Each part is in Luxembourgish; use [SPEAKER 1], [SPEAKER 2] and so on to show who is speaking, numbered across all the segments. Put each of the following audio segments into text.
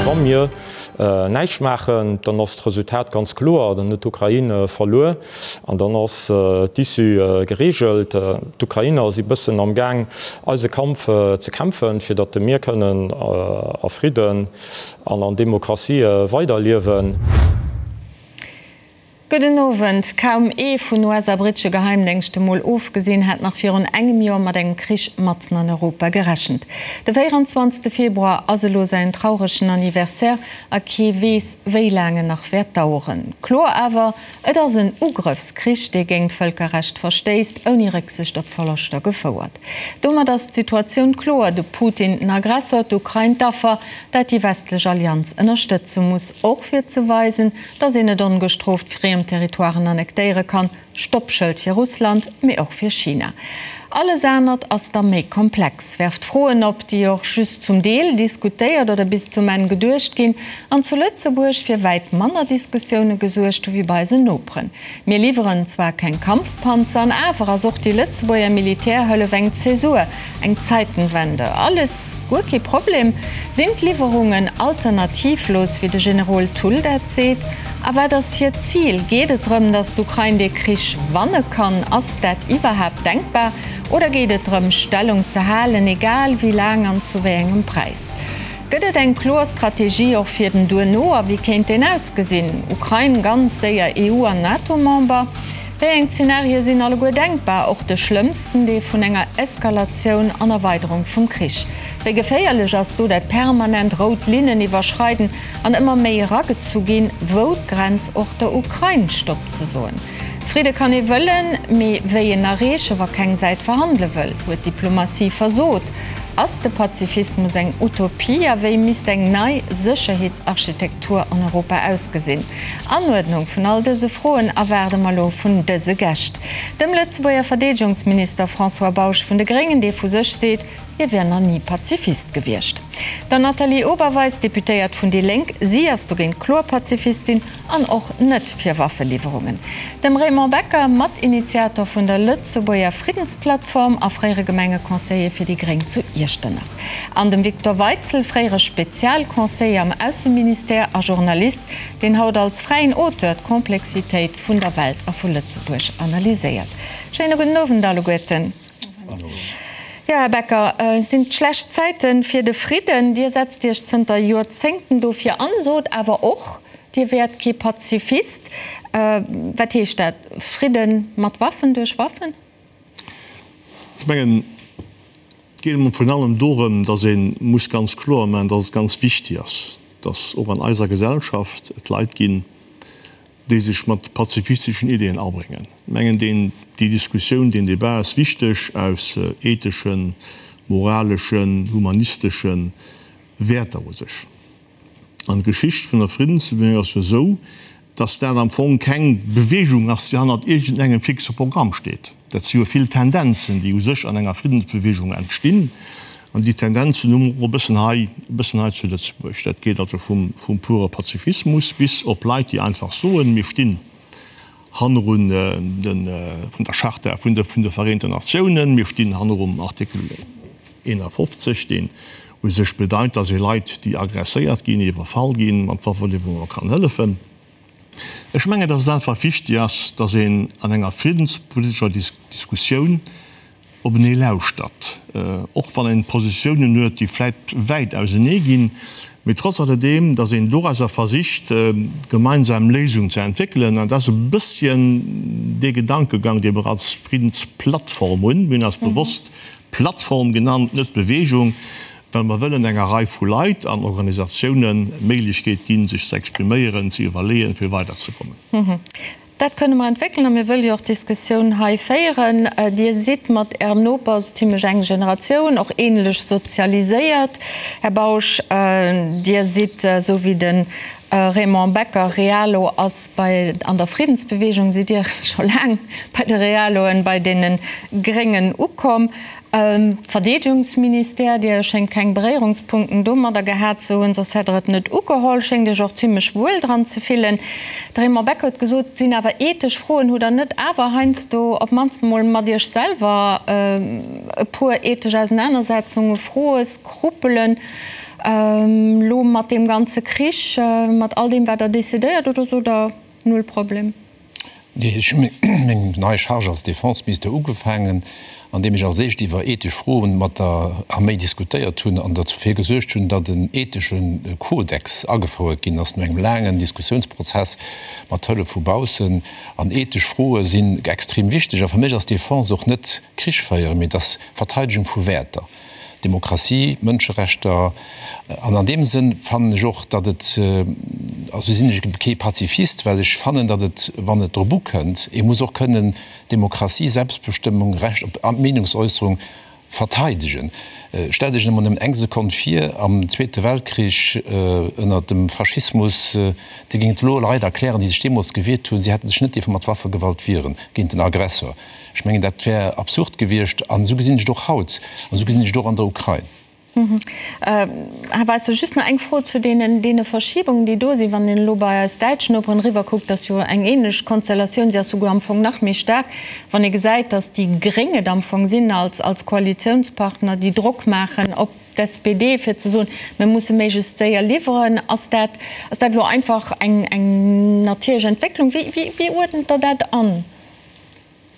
[SPEAKER 1] Wa mir näischt maachen, dann ass d'Resultat ganz kloer, dann huet d'Ukrain verluer an dann ass d'Issue gereegelt. D'Ukrainer si bëssen am Gaang eise Kampf ze kämpfen, fir datt mir kënnen a Fridden an an Demokratie weiderliewen.
[SPEAKER 2] Gudden Owend. Kaum ee vun US a brittesche Geheimdéngschte mol ofgesinn, hat nach virun engem Joer mat engem Krich matzen an Europa gerechent. De 24 Februar ass elo säin trauregen Anniversaire a kee weess, wéi laang en nach wäert daueren. Kloer awer, Et ass en Ugrëffskrich, dee géint d'Vëlkerrecht verstéisst, ouni Récksicht op Verloschter gefouert. Domat ass d'Situatioun kloer, de Putin den Aggressor, d'Ukrain d'Affer, dat déi westlech Allianz ënnerstëtze muss, och fir ze weisen, datt een net ongestrooft friem Territoiren annektéiere kann, Stoppschëld fir Russland, mee och fir China. Alles anert ass da méi komplex, werft Froen op, déi och just zum Deel diskutéiert oder bis zum Enn geduecht ginn an zu Lëtzebuerg fir wäit manner Diskussioune gesuergt hu wéi bei eisen Noperen. Mir liwweren zwar keng Kampfpanzer, an awer ass och déi Lëtzebuerger Militärhëllef eng Zäsur, eng Zeitenwende. Alles guer kee Problem? Sinn d'Liwwerungen alternativlos, wéi de Generol Thull dat seet? A wat ass hiert Zil? Geet et drëm, datt d'Ukrain dee Krich wanne kann? Ass dat iwwerhaapt denkbar? Oder geet et drëm, Stellung ze halen, egal wéi laang an zu wéi engem Präis? Gëtt et eng kloer Strategie och fir den Duerno a wéi kéint deen ausgesinn? Ukrain ganz séier EU an NATO-Member? Wéi eng Zenarie sinn alleguer denkbar, och de schlëmmsten, dee vun enger Eskalatioun an Erweiderung vum Krich? Wéi geféierlech ass do dat permanent rout Linnen iwwerschreiden an ëmmer méi eragezu ginn, wou d'Grenz och der Ukrain Stopp ze soen. Fridde kann ee wëllen, mee wéi en erreeche wa keng Säit verhandele wëll? Huet d'Diplomatie versot? Ass de Pazifismus eng Utopie a wéi misst eng nei Sécherheetsarchitektur an Europa ausgesinn? Anuerdnung vun all dëse Froen erwaarde mer elo vun dëse Gäscht, dem Lëtzebuerger Verdeedegungsminister François Bausch vun de Gréngen, dee vu sech seet, Hie wier nach ni Pazifist gewiescht. Der Nathalie Oberweis, Deputéiert vun déi Lénk, si ass dogéint kloer Pazifistin an och net fir Waffeliwwerungen. Dem Raymond Becker, Matinitiator vun der Lëtzebuerger Friddensplattform a fréiere Gemengeconseiller fir déi Gréng zu Iechternach. An dem Victor Weitzel, fréiere Spezialconseiller am Ausseministère a Journalist, deen haut als fräien Auteur d'Komplexitéit vun der Welt a vu Lëtzebuerg analyséiert. Schéine gudden Owend alleguerten. Jo, Här Becker, sinn et schlecht Zäite fir de Fridden? Dir setzt Iech zënter Joerzéngten dofir an, sot awer och, Dir wäert kee Pazifist. Wat heescht dat? Fridde mat Waffen, duerch Waffen?
[SPEAKER 3] Ech mengen, et geet emol virun allem dorëm, datt ee muss ganz kloer maachen, datt et ganz wichtig ass, datt och an eiser Gesellschaft et Leit ginn, déi sech mat pazifisteschen Ideeën abréngen. Ech mengen, deen, déi Diskussioun, deen Débat ass wichteg aus etheschen, moraleschen, humanistesche Wäerter u sech. An d'Geschicht vun der Friddensbewegung ass jo esou, dass dat am Fong keng Bewegung ass, déi hannert iergendengem fixe Programm steet. Dat si jo vill Tendenzen, déi u sech an enger Friddensbewegung entstinn. An déi Tendenzen hu mer och e bëssen hei, e bëssen hei zu Lëtzebuerg. Dat geet also vum, vum pure Pazifismus bis op Leit, déi einfach soen, mir stinn hannerun de, vun der Charta vun de, vun de Vereenten Natiounen, mir stinn hannerum Artikel 51, deen u sech bedeit, dass ee Leit, déi agresséiert ginn, iwwerfall ginn, mat Waffeliwwerunge kann hëllefen. Ech mengen, dass et einfach wichtig ass, dass een an enger friddenspolitescher Diskussioun openee lauschtert, och wann een Positiounen huet, déi vläit wäit ausenee ginn, mee trotz alledeem, dass een dorauser versicht, gemeinsam Léisungen ze entwéckelen. An dat ass e bësschen dee Gedankegang, dee mer als Friddensplattform hunn. Mir hunn eis bewosst Plattform genannt, net Bewegung, well mer wëllen enger Rei vu Leit an Organisatiounen d'Méiglechkeet ginn, sech ze expriméieren, ze iwwerleeën, fir weiderzekommen.
[SPEAKER 2] Dat kënne mer entwéckelen a mir wëlle jo och d'Diskussioun hei féieren. Dir sidd mat Ärem Noper esou zimlech eng Generatioun, och ähnlech sozialiséiert, Här Bausch. Dir sidd, esou wéi de Raymond Becker Realo ass bei an der Friddensbewegung, sidd Dir scho laang bei de Realoen, bei deene Gréngen ukomm. Verdeedegungsministère, Dir schéngt keng Beréierungspunkten domadder gehat ze hunn, soss hätt Der et net ugeholl. Schéngt Iech och zimlech wuel dran ze fillen. De Raymond Becker huet gesot, et sinn awer ethesch Froen. Hutt Der net awer heiansdo op d'mannst emol mat Iech selwer e puer ethesch Ausenanersetzungen, Froe, Skrupelen? Elo mat deem ganze Krich, mat all deem wat Der decidéiert, oder sot Der, null Problem?
[SPEAKER 4] Nee, ech hu meng nei Charge als Defenseminister ugefaangen, andeem ech als éischt iwwer ethesch Froen mat der Arméi diskutéiert hunn an dofir gesuergt hunn, datt en ethesche Kodex agefouert ginn ass no engem laangen Diskussiounsprozess mat Hëllef vu baussen. An ethesch Froe sinn extrem wichteg. A fir mech ass Defense och net Krich féieren, mee et ass Verteidegung vu Wäerter. Demokratie, Mënscherechter. An an deem Sënn fannen ech och, datt et, also sinn ech kee Pazifist, well ech fannen, datt et, wann et drop ukënnt, ee muss och kënnen Demokratie, Selbstbestëmmung, Recht op Meenungsäusserung verteidegen. Stellt Iech emol nëmmen eng Sekonn vir, am Zweete Weltkrich, ënner dem Faschismus, Dir géingt elo Leit erklären, déi sech deemools gewiert hunn, si hätte sech net dierfe mat Waffegewalt wieren géint den Aggressor. Ech mengen, dat wär absurd gewiescht. An esou gesinn ech et och haut. An esou gesinn ech et och an der Ukrain.
[SPEAKER 2] Här Weisser, just nach eng Fro zu deenen, deene Verschiebungen, déi do sinn. Wann een elo bei eis däitsch Noperen eriwwerkuckt, ass jo eng ähnlech Konstellatioun, si ass souguer am Fong nach méi staark, wann ee gesäit, datt déi Gréng et am Fong sinn als, als Koalitiounspartner, déi Drock maachen op d'SPD, fir ze soen, mir musse méiglechst séier liwweren. Ass dat, ass dat elo einfach eng, eng natierlech Entwécklung? Wéi, wéi, wéi uerdent Der dat an?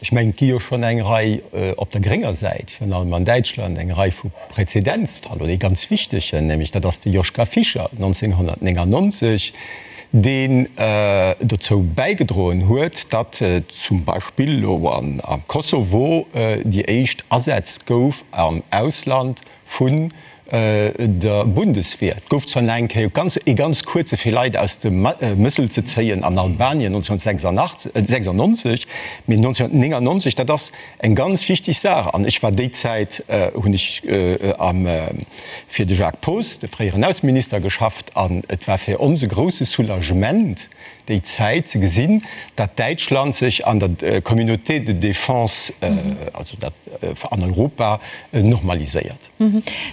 [SPEAKER 5] Ech mengen, et gi jo schonn eng Rei op der grénger Säit, virun allem an Däitschland, eng Rei vu Präzedenzfall oder ee ganz wichtegen, nämlech dat ass de Joschka Fischer 1999, deen dozou bäigedroen huet, datt zum Beispill elo am Kosovo déi éischt Asätz gouf am Ausland vun der Bundeswehr. Et gouf zwar nach eng Kéier ganz, ee ganz kuerze fir Leit aus dem Mëssel ze zéien an Albanien 1996, mee 1999, dat ass eng ganz wichteg Saach. An ech war déi Zäit, hunn ech am, fir de Jacques Poos, de fréieren Ausseminister, geschafft an et war fir ons e grousse Soulagement déi Zäit ze gesinn, datt Däitschland sech an der Communauté de défense, also dat an Europa, normaliséiert.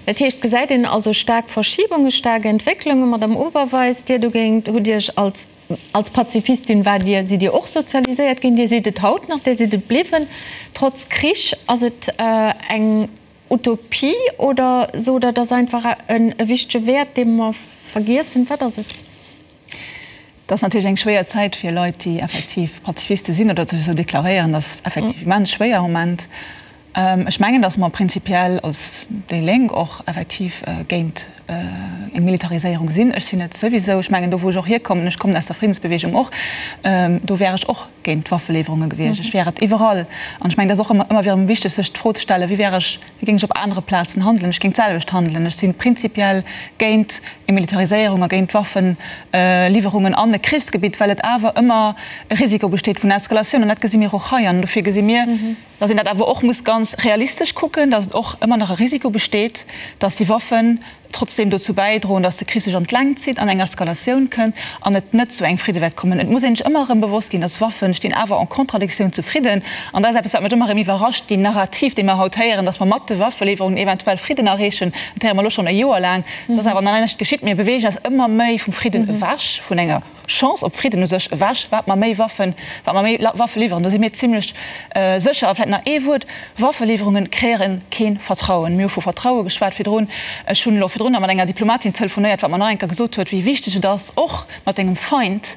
[SPEAKER 2] Dat heescht, gesäit een also staark Verschibungen, staark Entwécklungen. Madame Oberweis, Dir dogéint hutt Iech als, als Pazifistin waart Dir, sidd Dir och sozialiséiert ginn, Dir sidd et haut nach, Dir sidd et bliwwen, trotz Krich. Ass et eng Utopie oder sot Der, et ass einfach e wichtege Wäert, dee mer vergiessen? Wat ass et?
[SPEAKER 6] Et ass natierlech eng schwéier Zäit fir Leit, déi effektiv Pazifiste sinn oder sech esou deklaréieren. Dat ass effektiv immens schwéier am Moment. Ech mengen, datt mer prinzipiell als déi Lénk och effektiv géint eng Militariséierung sinn. Ech sinn et souwisou. Ech mengen, do wou ech och hierkommen, ech kommen aus der Friddensbewegung och, do wär ech och géint d'Waffeliwwerunge gewiescht. Ech wär et iwwerall. An ech mengen, et ass och ëmmer erëm wichteg, sech d'Fro ze stellen, Wéi wär ech Wéi géing ech op anere Plazen handelen? Ech géing d'selwecht handelen. Ech si prinzipiell géint eng Militariséierung a géint Waffeliwwerungen an e Krichsgebitt, well et awer ëmmer e Risiko besteet vun Eskalatioun. An dat gesi mir och hei. An dofir gesi mir, datt een dat awer och muss ganz realistesch kucken, datt et och ëmmer nach e Risiko besteet, datt déi Waffen trotzdem dozou bäidroen, datt de Krich sech an d'Längt zitt, an eng Eskalatioun kënnt an et net zu engem Fridde wäert kommen. Et muss een sech ëmmer erëm bewosst ginn, datt Waffen stinn awer en Contradictioun zu Fridden. An dat ass eppes, wat mech ëmmer erëm iwwerrascht, déi Narrativ, déi mer haut héieren, datt mer mat de Waffeliwwerungen eventuell Fridden erreechen, dat héiere mer elo schonn e Joer laang, dat ass awer nach näischt geschitt. Mir beweegen eis ëmmer méi vum Fridden ewech, vun enger. Chance op Fridden u sech ewech, wat mer méi Waffen, wat mer méi Waffe liwweren. Do si mir zimlech sécher. A vläicht nach ee Wuert, Waffeliwwerunge kreéiere kee Vertrauen. Mir hu vu Vertraue geschwat virdrun. Ech hunn elo virdrun nach mat enger Diplomatin telefonéiert, wat mer nach eng Kéier gesot huet, wéi wichteg et ass, och mat engem Feind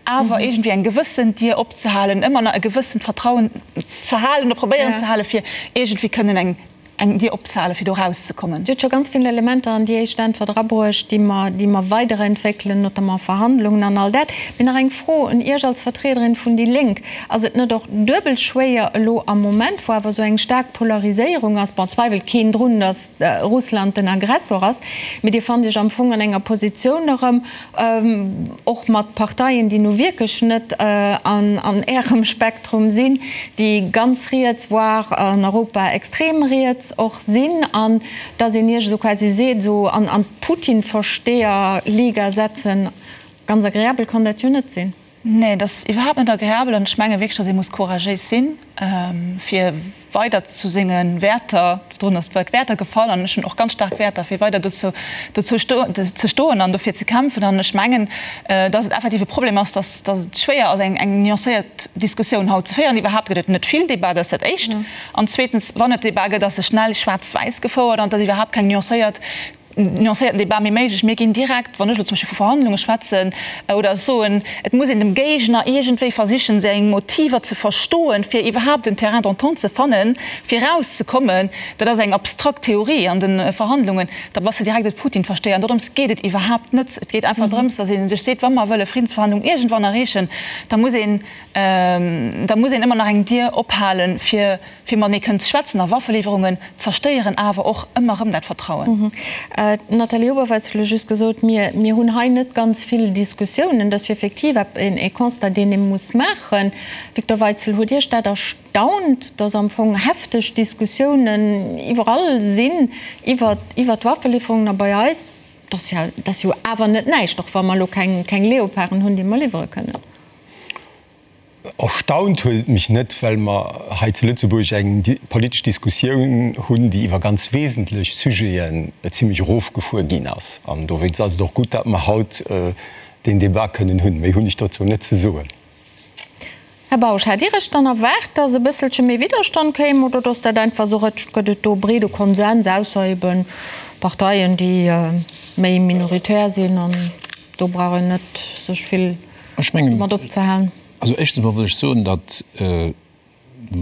[SPEAKER 6] awer iergendwéi eng gewëssen Dier opzehalen, ëmmer nach e gewëssent Vertrauen ze halen oder probéieren ze halen, fir iergendwéi kënnen eng eng Dier opzehalen, fir do erauszekommen.
[SPEAKER 2] Dir hutt scho ganz vill Elementer an déi éischt Äntwert erabruecht, déi mer, déi mer weiderentwéckelen, notamment Verhandlungen an all dat. Mee nach eng Fro un Iech als Vertriederin vun déi Lénk, Ass et net och duebel schwéier elo am Moment, wou awer esou eng staark Polariséierung ass, bon, zweiwelt keen drun, datt Russland den Aggressor ass, mee Dir fannt Iech am Fong an enger Positioun erëm, och mat Parteien, déi nu wierklech net an Ärem Spektrum sinn, déi ganz riets, voire an Europa extrem riets och sinn, an dass een Iech esou quasi seet, esou an d'Putin-Versteher-Liga setzen, ganz agreabel kann dat jo net sinn.
[SPEAKER 6] Nee, et ass iwwerhaapt net agreabel an ech menge wierklech, datt ee muss couragéis sinn, fir weider zu senge Wäerter, virdrun ass d'Wuert Wäerter gefall an ech hunn och ganz staark Wäerter, fir weider dozou dozou ze stoen an dofir ze kämpfen. An ech mengen, datt et effektiv e Problem ass, datt datt et schwéier ass, eng eng nuancéiert Diskussioun haut ze féieren. Iwwerhaapt gëtt et net vill Debat, dat ass dat Éischt. An zweetens, wann et Debat gëtt, ass e schnell schwaarz-wäiss gefouert an et ass iwwerhaapt keng nuancéiert. Nuancéierten Debat méi méiglech. Mir ginn direkt, wann ech elo zum Beispill vu Verhandlunge schwätzen oder soen, et muss een dem Géigner iergendwéi versichen, seng Motiver ze verstoen, fir iwwerhaapt en Terrain d'entente ze fannen, fir erauszekommen, dat ass eng abstrakt Theorie an de Verhandlungen, da bass de direkt e Putin-Versteher. An dorëms geet et iwwerhaapt net. Et geet einfach drëms, datt ee sech seet, wa mer wëlle Friddensverhandlungen iergendwann erreechen, da muss een, da muss een ëmmer nach eng Dier ophalen, fir fir matenee kënnen ze schwätzen a Waffeliwwerungen zerstéieren awer och ëmmer erëm dat Vertrauen.
[SPEAKER 2] D'Nathalie Oberweis huet elo just gesot, mir, mir hunn hei net ganz vill Diskussiounen. Dat ass jo effektiv e Constat, deen ee muss maachen. Victor Weitzel, huet Iech dat erstaunt, datt am Fong hefteg Diskussiounen iwwerall sinn iwwer, iwwer d'Waffeliwwerungen a bei eis, dat ass jo, dat ass jo awer net näischt, och wa mer elo keng, keng Leoparden hunn, déi mer liwwere kënnen?
[SPEAKER 5] Erstaunt huet et mech net, well mer hei zu Lëtzebuerg eng politesch Diskussioun hunn, déi iwwer ganz wesentlech Sujeten zimlech erofgefuer ginn ass. An dowéinst ass et och gutt, datt mer haut deen Débat kënnen hunn. Méi hunn ech dozou net ze soen.
[SPEAKER 2] Här Bausch, hat Dir Iech dann erwaart, datt e bësselche méi Widderstand kéim, oder datt dat einfach esou rëtscht? Gëtt et do breede Konsens, ausser ebe Parteien, déi méi minoritär sinn an do brauch een net sech vill
[SPEAKER 4] Ech mengen,
[SPEAKER 2] mat opzehalen.
[SPEAKER 4] also éischtens emol wëll ech soen, datt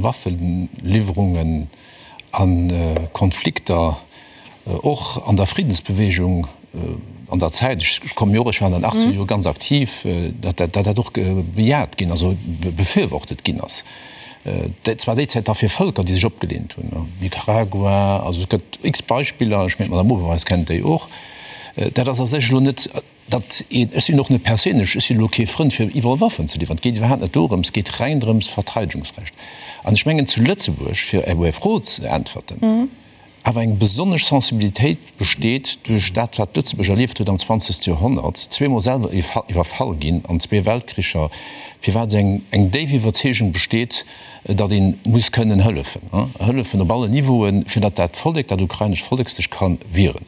[SPEAKER 4] Waffeliwwerungen a Konflikter och an der Friddensbewegung an der Zäit, ech komme jo och, ech war an den achtzeger Jore ganz aktiv, datt dat och bejaht ginn, also befürwortet ginn ass. Dat war déi Zäit da fir Vëlker, déi sech opgelehnt hunn, Nicaragua, also et gëtt x Beispiller, ech mengen d'Madame Oberweis kennt déi och. Dat ass a sech elo net. Datt een, ech sinn och net perséinlech, ech sinn elo kee Frënd fir iwwerall Waffen ze liwweren, et geet iwwerhaapt net dorëms, et geet reng drëms Verteidegungsrecht. An ech mengen zu Lëtzebuerg, fir op Är Fro ze äntwerten, awer eng besonnesch Sensibilitéit besteet duerch dat wat Lëtzebuerg erlieft huet am zwanzegste Joerhonnert, zweemol selwer iwwerfall ginn an zwee Weltkricher, firwat eng eng déif Iwwerzeegung besteet, datt ee muss kënnen hëllefen, hëllefen op allen Niveauen, fir datt dat Vollek, dat ukrainescht Vollek sech ka wieren.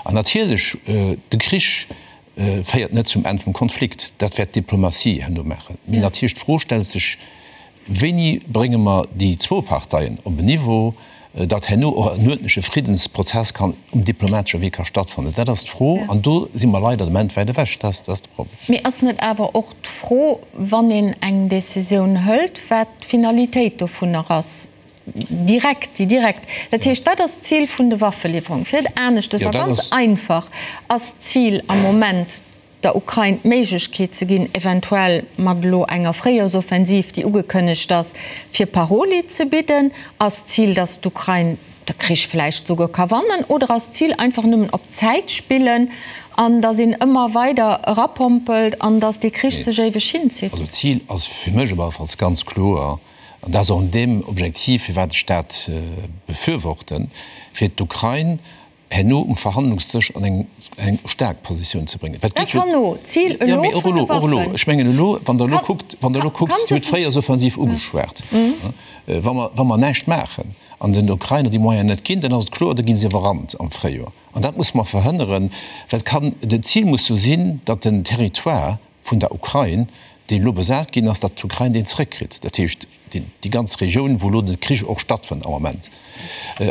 [SPEAKER 4] An natierlech, de Krich féiert net zum Enn vum Konflikt, dat wäert d'Diplomatie herno maachen. Mee natierlech d'Fro stellt sech, Wéini brénge mer déi zwou Parteien op en Niveau, datt herno och en uerdentleche Friddensprozess kann um diplomatesche Wee ka stattfannen? Dat ass d'Fro, an do si mer leider de Moment wäit ewech. Dat ass de Problem.
[SPEAKER 2] Mee ass net awer och d'Fro, wann een eng Décisioun hëlt, wat d'Finalitéit dovunner ass? Direkt, déi direkt. Dat heescht, wat ass d'Zil vun de Waffeliwwerungen? Fir et aneschtes a ganz einfach, ass d'Zil am Moment, der Ukrain d'Méiglechkeet ze ginn, eventuell mat elo enger Fréijoersoffensiv, déi ugekënnegt ass, fir Paroli ze bidden? Ass d'Zil, datt d'Ukrain de Krich vläicht souguer ka wannen? Oder ass d'Zil einfach nëmmen op Zäit spillen an datt een ëmmer weider erapompelt an datt dee Krich sech éiweg hinzitt?
[SPEAKER 4] Also d'Zil ass fir mech op alle Falls ganz kloer, An dat ass och an deem Objektiv, firwat ech dat befürworten, fir d'Ukrain herno um Verhandlungsdësch an eng eng staark Positioun ze bréngen.
[SPEAKER 2] Dat ass herno d'Zil elo vun de
[SPEAKER 4] Waffen. Och elo. Ech mengen elo, wann Der elo kuckt, wann Der elo kuckt, Dir hutt d'Fréijoersoffensiv ugeschwat. Wa mer, wa mer näischt maachen an den Ukrainer déi Moyenen net ginn, dann ass et kloer, da gi se iwwerrannt am Fréijoer. An dat musse mer verhënneren, well et kann, d'Zil muss jo sinn, datt den Territoire vun der Ukrain, deen elo besat ginn ass, datt d'Ukrain deen zrëckkritt, dat heescht déi ganz Regioun, wou elo de Krich och stattfënnt am Moment.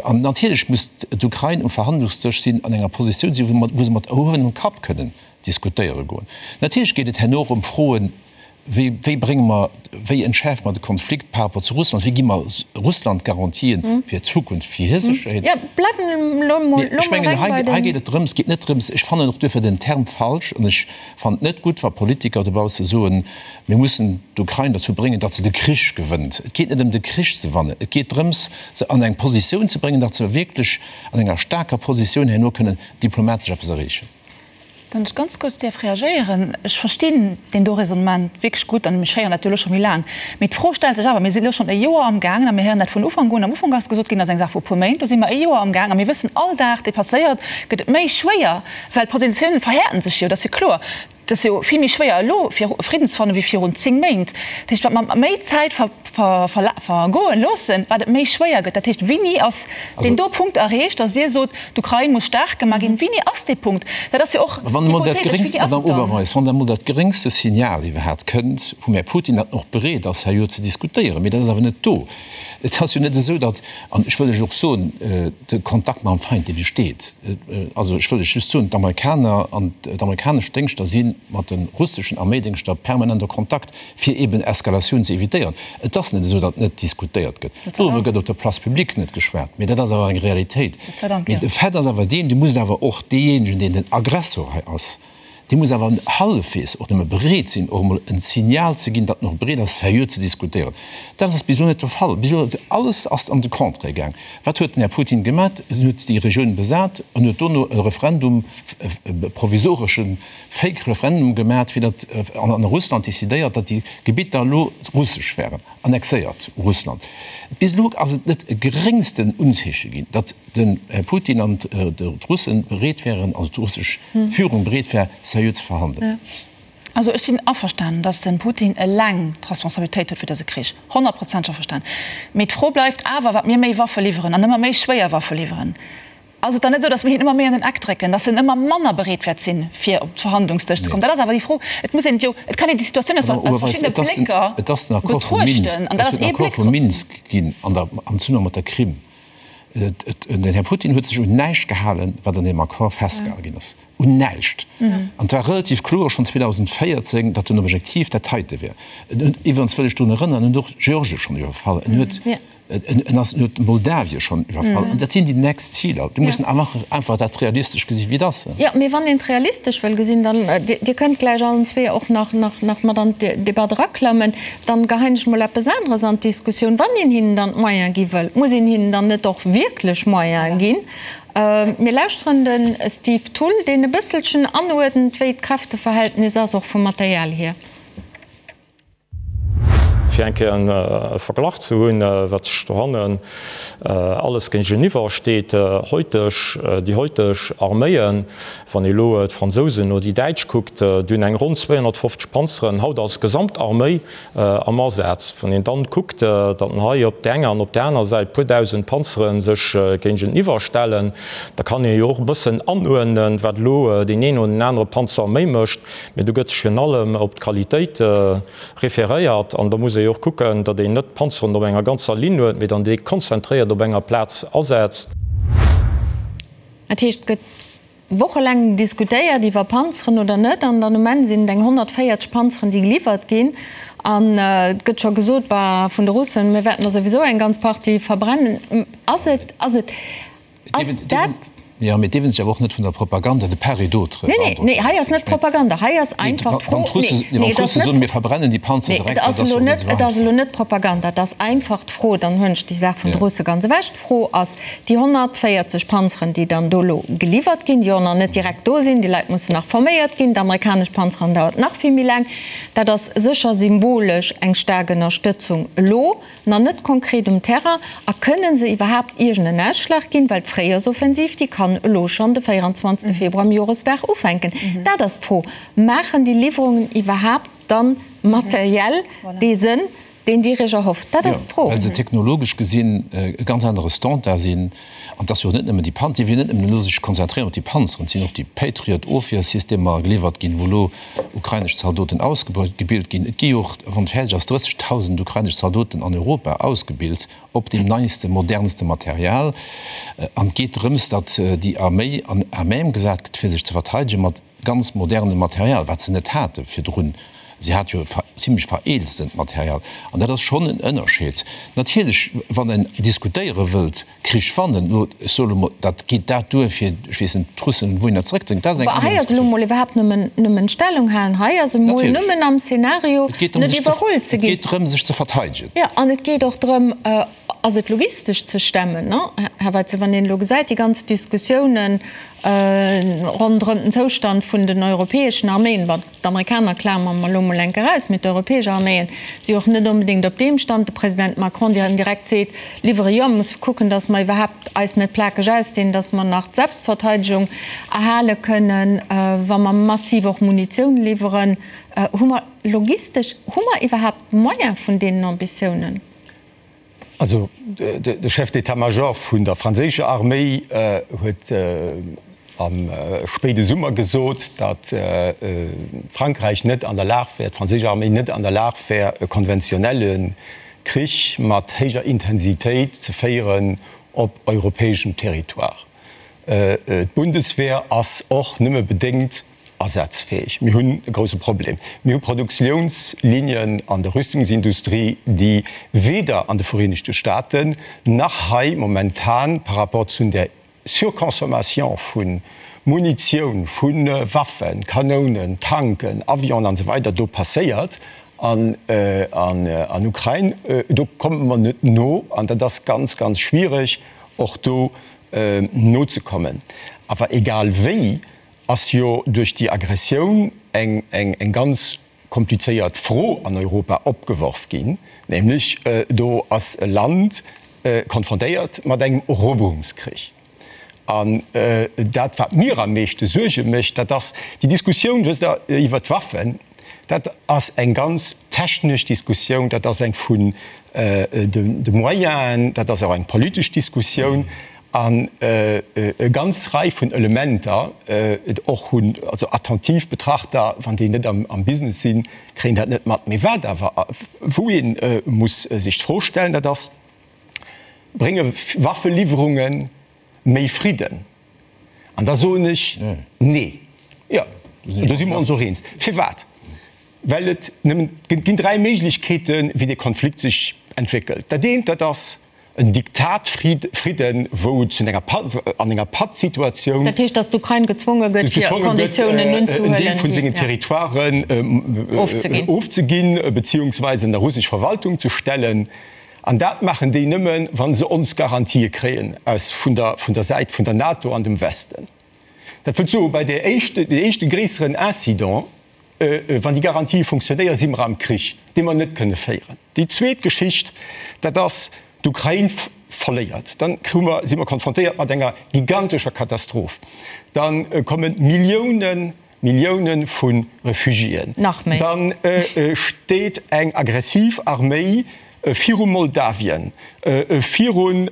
[SPEAKER 4] An natierlech muss d'Ukrain um Verhandlungsdësch sinn, an enger Positioun sinn, wou se mat erhuewenem Kapp kënnen diskutéiere goen. Natierlech geet et herno och ëm Froen, Wéi, wéi brénge mer, wéi entschäerfe mer de Konflikt par rapport zu Russland? Wéi gi mer Russland Garantien fir d'Zukunft, fir hir Sécherheet?
[SPEAKER 2] Jo, bleiwen elo mol,
[SPEAKER 4] elo
[SPEAKER 2] mol
[SPEAKER 4] Ech mengen,
[SPEAKER 2] reng
[SPEAKER 4] hei,
[SPEAKER 2] bei
[SPEAKER 4] hei
[SPEAKER 2] den.
[SPEAKER 4] geet et drëms, et geet net drëms, ech fannen och duerfir den Term falsch an ech fannen et net gutt, wa Politiker dobausse soen, mir mussen d'Ukrain derzou bréngen, datt se de Krich gewënnt. Et geet net ëm de Krich ze wannen, et geet drëms, se an eng Positioun ze bréngen, datt se wierklech an enger staarker Positioun herno kënnen diplomatesch eppes erreechen.
[SPEAKER 6] Wann ech ganz kuerz däerf reagéieren, Ech verstinn deen do Raisonnement wierklech gutt an ech héieren dat jo elo scho méi laang. Mee d'Fro stellt sech awer, Mir sinn elo schonn e Joer amgaangen a mir héieren dat vun Ufank un. Am Ufank ass gesot ginn, dat ass eng Saach vu e puer Méint. Elo si mer e Joer amgaang a mir wëssen, all Dag, dee passéiert, gëtt et méi schwéier, well d'Positiounen verhäerten sech jo, dat ass jo kloer. Et ass jo vill méi schwéier elo fir Fridden ze fannen, wéi virun 10 Méint. Dat heescht, wat mer méi Zäit vergoen loossen, wat et méi schwéier gëtt. Dat heescht, wéini ass deen do Punkt erreecht, datt Dir sot, d'Ukrain muss staark gemaach ginn? Wéini ass dee Punkt? Dat ass jo och
[SPEAKER 4] hypothetesch. Wéini ass et dann? Madame Oberweis, wann da mol dat geréngste Signal iwwerhaapt kënnt vum Här Putin, datt en och bereet ass, herjo ze diskutéieren, mee dat ass awer net do. Et ass jo net esou, datt, an ech wëll lech och soen, de Kontakt mam Feind, dee besteet. Also ech wëll lech just soen, d'Amerikaner an d'amerikanesch Déngschter si mat de russeschen Arméidéngschter permanent a Kontakt, fir eben Eskalatioun ze évitéieren. Et ass net esou, datt net diskutéiert gëtt. Doriwwer gëtt op der Place publique net geschwat, mee dat ass awer eng Realitéit. Mee de Fait ass awer deen, Du muss awer och deejéinegen, deen den Aggressor hei ass, dee muss awer hallefwegs och nëmme bereet sinn, och emol en Signal ze ginn, datt en och bereet ass, seriö ze diskutéieren. Dat ass bis elo net de Fall. Bis elo, alles ass an de Contraire gaang. Wat huet den Här Putin gemat? En huet déi Regioun besat an huet dono e Referendum, e provisoresche Fake Referendum gemat, fir datt an Russland decidéiert, datt déi Gebitter elo russesch wären. Annexéiert Russland. Bis elo ass et net e geréngsten Unzeeche ginn, datt den Här Putin an d'Russen bereet wären, also d'russesch Führung bereet wär, seriö ze verhandelen.
[SPEAKER 6] Also ech sinn averstanen, datt de Putin eleng d'Responsabilitéit huet fir dëse Krich, honnertprozenteg averstanen. Mee d'Fro bleift awer, wat mir méi Waffe liwweren an ëmmer méi schwéier Waffe liwweren, Ass et dann net esou, datt mir hien ëmmer méi an den Eck drécken, datt en ëmmer manner bereet wäert sinn, fir op d'Verhandlungsdësch ze kommen? Dat ass awer déi Fro. Et muss een et jo, et kann een déi Situatioun aus verschiddene Blécker
[SPEAKER 4] Et ass den Accord vu Minsk,
[SPEAKER 6] betruechten, an dat
[SPEAKER 4] ass ee Bléck
[SPEAKER 6] drop.
[SPEAKER 4] Minsk ginn an der, am Zesummenhang mat der Krim. Den Här Putin huet sech un näischt gehalen, wat an deem Accord festgehale ginn ass. Un näischt! An et war relativ kloer schonn 2014, datt den Objektiv dat heite wär. En huet, iwwerens wëll ech drun erënneren, en huet och Georgien schonn iwwerfall, en huet, En ass huet Moldawien schonn iwwerfall. An dat sinn déi nächst Ziler. Mir mussen einfach dat realistesch gesi wéi et ass.
[SPEAKER 2] Jo, mee wann een et realistesch wëll gesinn, dann, Dir kënnt gläich allen zwee och nach mat an d'Debatt eraklammen, dann geheien ech mol eppes aneres an d'Diskussioun. Wann een hinnen dann d'Moyene gi wëll, muss een hinnen dann net och wierklech Moyene ginn? Mir lauschteren de Steve Thull, deen e bësselchen anuerdent, wéi d'Kräfteverhältnis ass, och vum Material hier.
[SPEAKER 1] Fir eng Kéier e Verglach ze hunn, wat sech dohannen alles géigeniwwer steet, Heuteg, déi heuteg Arméien, wann ee elo d'Fransousen oder déi Däitsch kuckt, déi hunn eng ronn 250 Panzeren haut als Gesamtarméi am Asaz. Wann een dann kuckt, datt hei op där enger an op där aner Säit e puer dausend Panzere sech géigeniwwer stellen, da kann ee jo och e bëssen anuerdnen, wat elo deen een oder deen anere Panzer méi mécht. Mee do gëtt sech virun allem op d'Qualitéit referéiert an da muss ee jo och kucken, datt een net d'Panzeren op enger ganzer Linn huet, mee dann déi konzentréiert op enger Plaz asetzt.
[SPEAKER 2] Dat heescht, et gëtt wochelaang diskutéiert iwwer Panzeren oder net an dann um Enn sinn et eng 140 Panzeren, déi geliwwert ginn an et gëtt scho gesot, bah, vun de Russen, mir wäerten der souwisou eng ganz Partie verbrennen. Ass et, ass et. Ass dat.
[SPEAKER 4] Jo, mee dierfen sech awer och net vun der Propaganda de part et d'autre
[SPEAKER 2] Nee, nee, nee, hei ass net Propaganda, hei ass einfach d'Fro.
[SPEAKER 4] Wann d'Russe, nee, wann d'Russe soen, mir verbrennen déi Panzer direkt,
[SPEAKER 2] dat ass jo net esou einfach. Et ass elo net Propaganda, et ass einfach d'Fro, dann huelen ech déi Saach vun de Russe ganz ewech, d'Fro ass, déi 140 Panzeren, déi dann do elo geliwwert ginn, déi och nach net direkt do sinn, déi Leit mussen nach forméiert ginn, d'amerikanesch Panzeren dauert nach vill méi laang, dat ass sécher symbolesch eng staark Ënnerstëtzung elo. Nach net konkret um Terrain. A kënnen se iwwerhaapt iergend en Ausschlag ginn? Well d'Fréijoersoffensiv, déi kann elo schonn de 24 Februar am Joresdag ufänken. Dat ass d'Fro. Maachen déi Liwwerungen iwwerhaapt dann materiell dee Sënn, deen Dir Iech erhofft? Dat ass d'Fro.
[SPEAKER 4] Jo, well se technologesch gesinn e ganz anere Standard sinn. An et ass jo och net nëmmen déi Panzer, si wëllen net nëmmen elo sech konzentréieren op déi Panzeren, et sinn och déi Patriot-Ofwiersystemer geliwwert ginn, wou elo ukrainesch Zaldoten ausgebilt ginn. Et gi jo och, wann et fäerdeg ass, 30.000 ukrainesch Zaldoten an Europa ausgebilt op deem neiste, modernste Material. An et geet drëms, datt déi Arméi an à même gesat gëtt, fir sech ze verteidegen mat ganz modernem Material, wat se net hate virdrun. Si hat jo zimlech vereelztent Material. An dat ass schonn en Ënnerscheed. Natierlech, wann een diskutéiere wëllt, Krich wannen, elo, ech soe lo mol, dat geet dat duer fir, ech weess net, d'Russen wouhinner zeréckzedréngen, dat ass eng
[SPEAKER 2] aner Hei ass elo
[SPEAKER 4] Diskussioun.
[SPEAKER 2] mol iwwerhaapt nëmmen, nëmmen Stellung halen. Hei ass emol nëmmen am Szenario,
[SPEAKER 4] Et geet drëm,
[SPEAKER 2] net
[SPEAKER 4] sech ze,
[SPEAKER 2] iwwerrullt ze
[SPEAKER 4] et
[SPEAKER 2] ginn.
[SPEAKER 4] geet drëm, sech ze verteidegen.
[SPEAKER 2] Jo, an et geet och drëm, ass et logistesch ze stemmen, ne, Här Weitzel, wann een elo gesäit, déi ganz Diskussiounen ronderëm den Zoustand vun den europäeschen Arméien, bon, D'Amerikaner klamere mer elo mol enk eraus, mee d'europäesch Arméien si och net onbedéngt op deem Stand. De President Macron, deen direkt seet, Liwwere jo, mir musse kucken, datt mer iwwerhaapt eis net plakeg ausdinn, datt mer nach d'Selbstverteidegung erhale kënnen, wa mer massiv och Munitioun liwweren. Hu mer logistesch, hu mer iwwerhaapt d'Moyen vun deenen Ambitiounen?
[SPEAKER 5] Also de Chef d'état-major vun der franséischer Arméi huet am spéide Summer gesot, datt Frankräich net an der Lag wär, d'franséisch Arméi net an der Lag wär, e konventionelle. Krich mat héijer Intensitéit ze féieren op europäeschem Territoire. D'Bundeswehr ass och nëmme bedéngt asazfäeg. Mir hunn e grouse Problem. Mir hu Produktiounslinien an der Rüstungsindustrie, déi weder an de Vereenegte Staaten nach hei momentan par rapport zu der Surconsommation vu Munitioun, vu Waffen, Kanounen, Tanken, Avionen an esou weider do passéiert an an Ukrain. Do komme mer net no an dat ass ganz, ganz schwiereg och do nozekommen. Awer egal wéi ass jo duerch déi Aggressioun eng eng ganz komplizéiert Fro an Europa opgeworf ginn, nämlech do ass e Land konfrontéiert mat engem Eroberungskrich. An dat, wat mir am meeschte Suerge mécht, dat ass déi Diskussioun, wësst Der, iwwert d'Waffen, dat ass eng ganz technesch Diskussioun, dat ass eng vun de Moyenen, dat ass och eng politesch Diskussioun. An e ganz Rei vun Elementer och hunn, also attentiv Betrachter, wann déi net am Business sinn, kréien dat net mat. Mee wat awer, wou ee muss sech d'Fro stellen, dat ass, Brénge Waffeliwwerunge méi Fridden? An da soen ech, Nee. Jo, do si mer ons och eens. Firwat? Well et nëmmen, et ginn dräi Méiglechkeeten, wéi dee Konflikt sech entwéckelt. Dat eent, dat ass, En Diktat Fridden, wou et zu enger an enger Pattsituatioun.
[SPEAKER 2] Dat heescht, datt d'Ukrain gezwonge gëtt, fir Konditiounen unzehuelen,
[SPEAKER 5] en Deel vun sengen Territoiren ofzeginn, beziehungsweise ënner russesch Verwaltung ze stellen. An dat maachen déi nëmmen, wa se ons Garantië kréien aus vun der vun der Säit vun der NATO an dem Westen. Dat wëllt soen, bei där éischte, dee éischte gréisseren Incident, Wann déi Garantië funktionéieren, si mer am Krich, dee mer net kënne féieren. Déi zweet Geschicht, dat ass, d'Ukrain verléiert. Dann hu mer, si mer konfrontéiert mat enger gigantescher Katastroph. Da komme Milliounen, Millioune vu Refugiéen.
[SPEAKER 2] Nach méi.
[SPEAKER 5] Dann steet eng aggressiv Arméi viru Moldawien, virun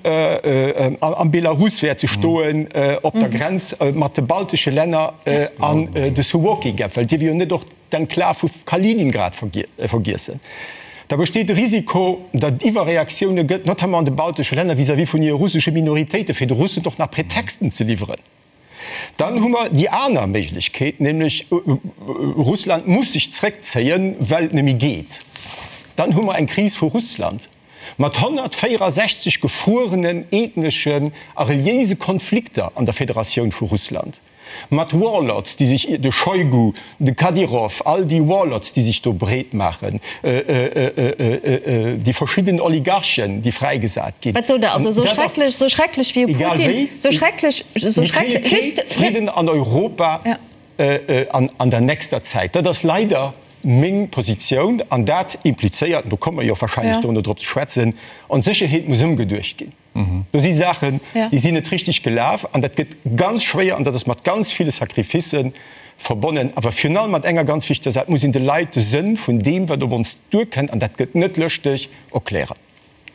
[SPEAKER 5] am Belarus wäert se stoen, op der Grenz mat de baltesche Länner an de Suwalki Gap, well dierf jo net och d'Enklav vu Kaliningrad vergiessen. Da besteet de Risiko, datt et Iwwerreaktioune gëtt, notamment an de baltesche Länner vis-à-vis vun hire russesche Minoritéiten, fir de Russen och nach Pretexten ze liwweren. Dann hu mer déi aner Méiglechkeet, nämlech Russland muss sech zréckzéien, well et net méi geet. Dann hu mer eng Kris vu Russland mat 164 gefruerenen ethneschen a reliéise Konflikter an der Federatioun vu Russland, mat Warlords, déi sech, de Shoigu, de Kadyrov, all déi Warlords, déi sech do breet maachen, déi verschidden Oligarchen, déi fräigesat ginn.
[SPEAKER 2] Wat sot Der? Also esou schrecklech, esou schrecklech wéi e Putin, esou schrecklech, esou schrecklech,
[SPEAKER 5] just. Mir kréie kee Fridden an Europa an der nächster Zäit. Dat ass leider meng Positioun an dat implizéiert, an do komme mer jo wahrscheinlech dono drop ze schwätzen, ons Sécherheet muss ëmgeduecht ginn. Do si Saachen, déi sinn net richteg gelaf an dat gëtt ganz schwéier an dat ass mat ganz ville Sacrificë verbonnen. Awer virun allem mat enger ganz wichteger Saach, Et muss een de Leit de Sënn vun deem, wat op ons duerkënnt, an dat gëtt net lëschteg, erklären.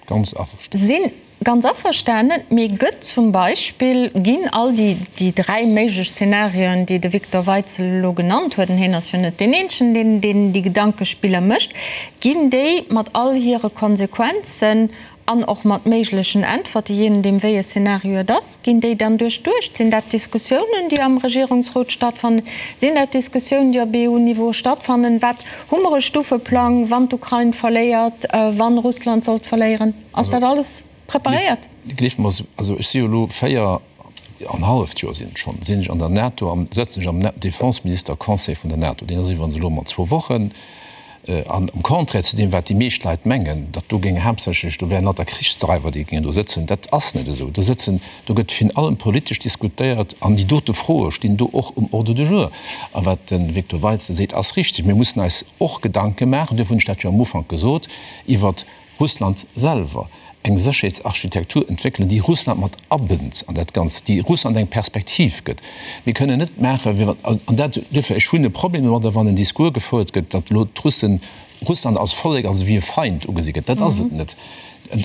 [SPEAKER 4] Ganz averstanen.
[SPEAKER 2] Sinn ganz averstanen. Mee gëtt zum Beispill, ginn all déi, déi dräi méiglech Szenarioen, déi de Victor Weitzel elo genannt huet, an hien ass jo net deen eenzegen, deen, deen déi Gedankespiller mécht, ginn déi mat all hire Konsequenzen An och mat méiglechen Äntwerte, jee nodeem wéi e Szenario et ass, ginn déi dann duerchduecht? Sinn dat Diskussiounen, déi am Regierungsrot stattfannen? Sinn dat Diskussiounen, déi op EU-Niveau stattfannen? Wat, hu mer e Stufeplang, wann d'Ukrain verléiert, wann Russland sollt verléieren? Ass dat alles preparéiert?
[SPEAKER 4] Gleeft mer, also ech si jo elo 4 an halleft Joer sinn et schonn, sinn ech an der NATO an sëtzen ech am Defenseminister-Conseil vun der NATO. Deen ass iwwerens elo mat zwou Wochen. An am Contraire zu deem, wat déi meescht Leit mengen, datt do géing haaptsächlech, do wären lauter Krichsdreiwer, déi géingen do sëtzen, dat ass net esou. Do sëtzen, do gëtt virun allem politesch diskutéiert an déi dote Froe stinn do och um Ordre du jour. A wat de Victor Weitzel seet, ass richtig. Mir mussen eis och Gedanke maachen, duerfir hunn ech dat jo am Ufank gesot, iwwert Russland selwer eng Sécherheetsarchitektur entwéckelen, déi Russland mat abënnt an dat Ganzt, déi Russland eng Perspektiv gëtt. Mir kënnen net maachen, wéi wann, an dat, duerfir, ech hunn e Problem domadder, wann en Discours gefouert gëtt, datt elo d'Russen, Russland als Vollek, als ewéi e Feind ugesi gëtt. Dat ass et net.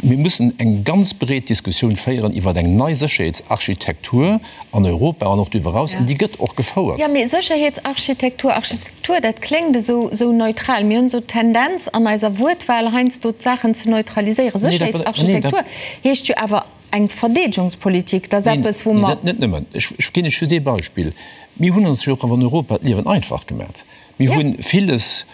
[SPEAKER 4] Mir mussen eng ganz breet Diskussioun féieren iwwer eng nei Sécherheetsarchitektur an Europa an och doriwwer eraus, an déi gëtt och gefouert.
[SPEAKER 2] Jo, mee Sécherheetsarchitektur, Architektur, dat kléngt esou, esou neutral. Mir hunn esou d'Tendenz an eiser Wuertwahl heiansdo d'Saachen ze neutraliséieren. Sécherheetsarchitektur heescht jo awer eng Verdeedegungspolitik. Dat ass eppes, wou mer.
[SPEAKER 4] Neen, net nëmmen. Ech ginn Iech just ee Beispill. Mir hunn ons jo och an Europa d'Liewen einfach gemat. Mir hu villes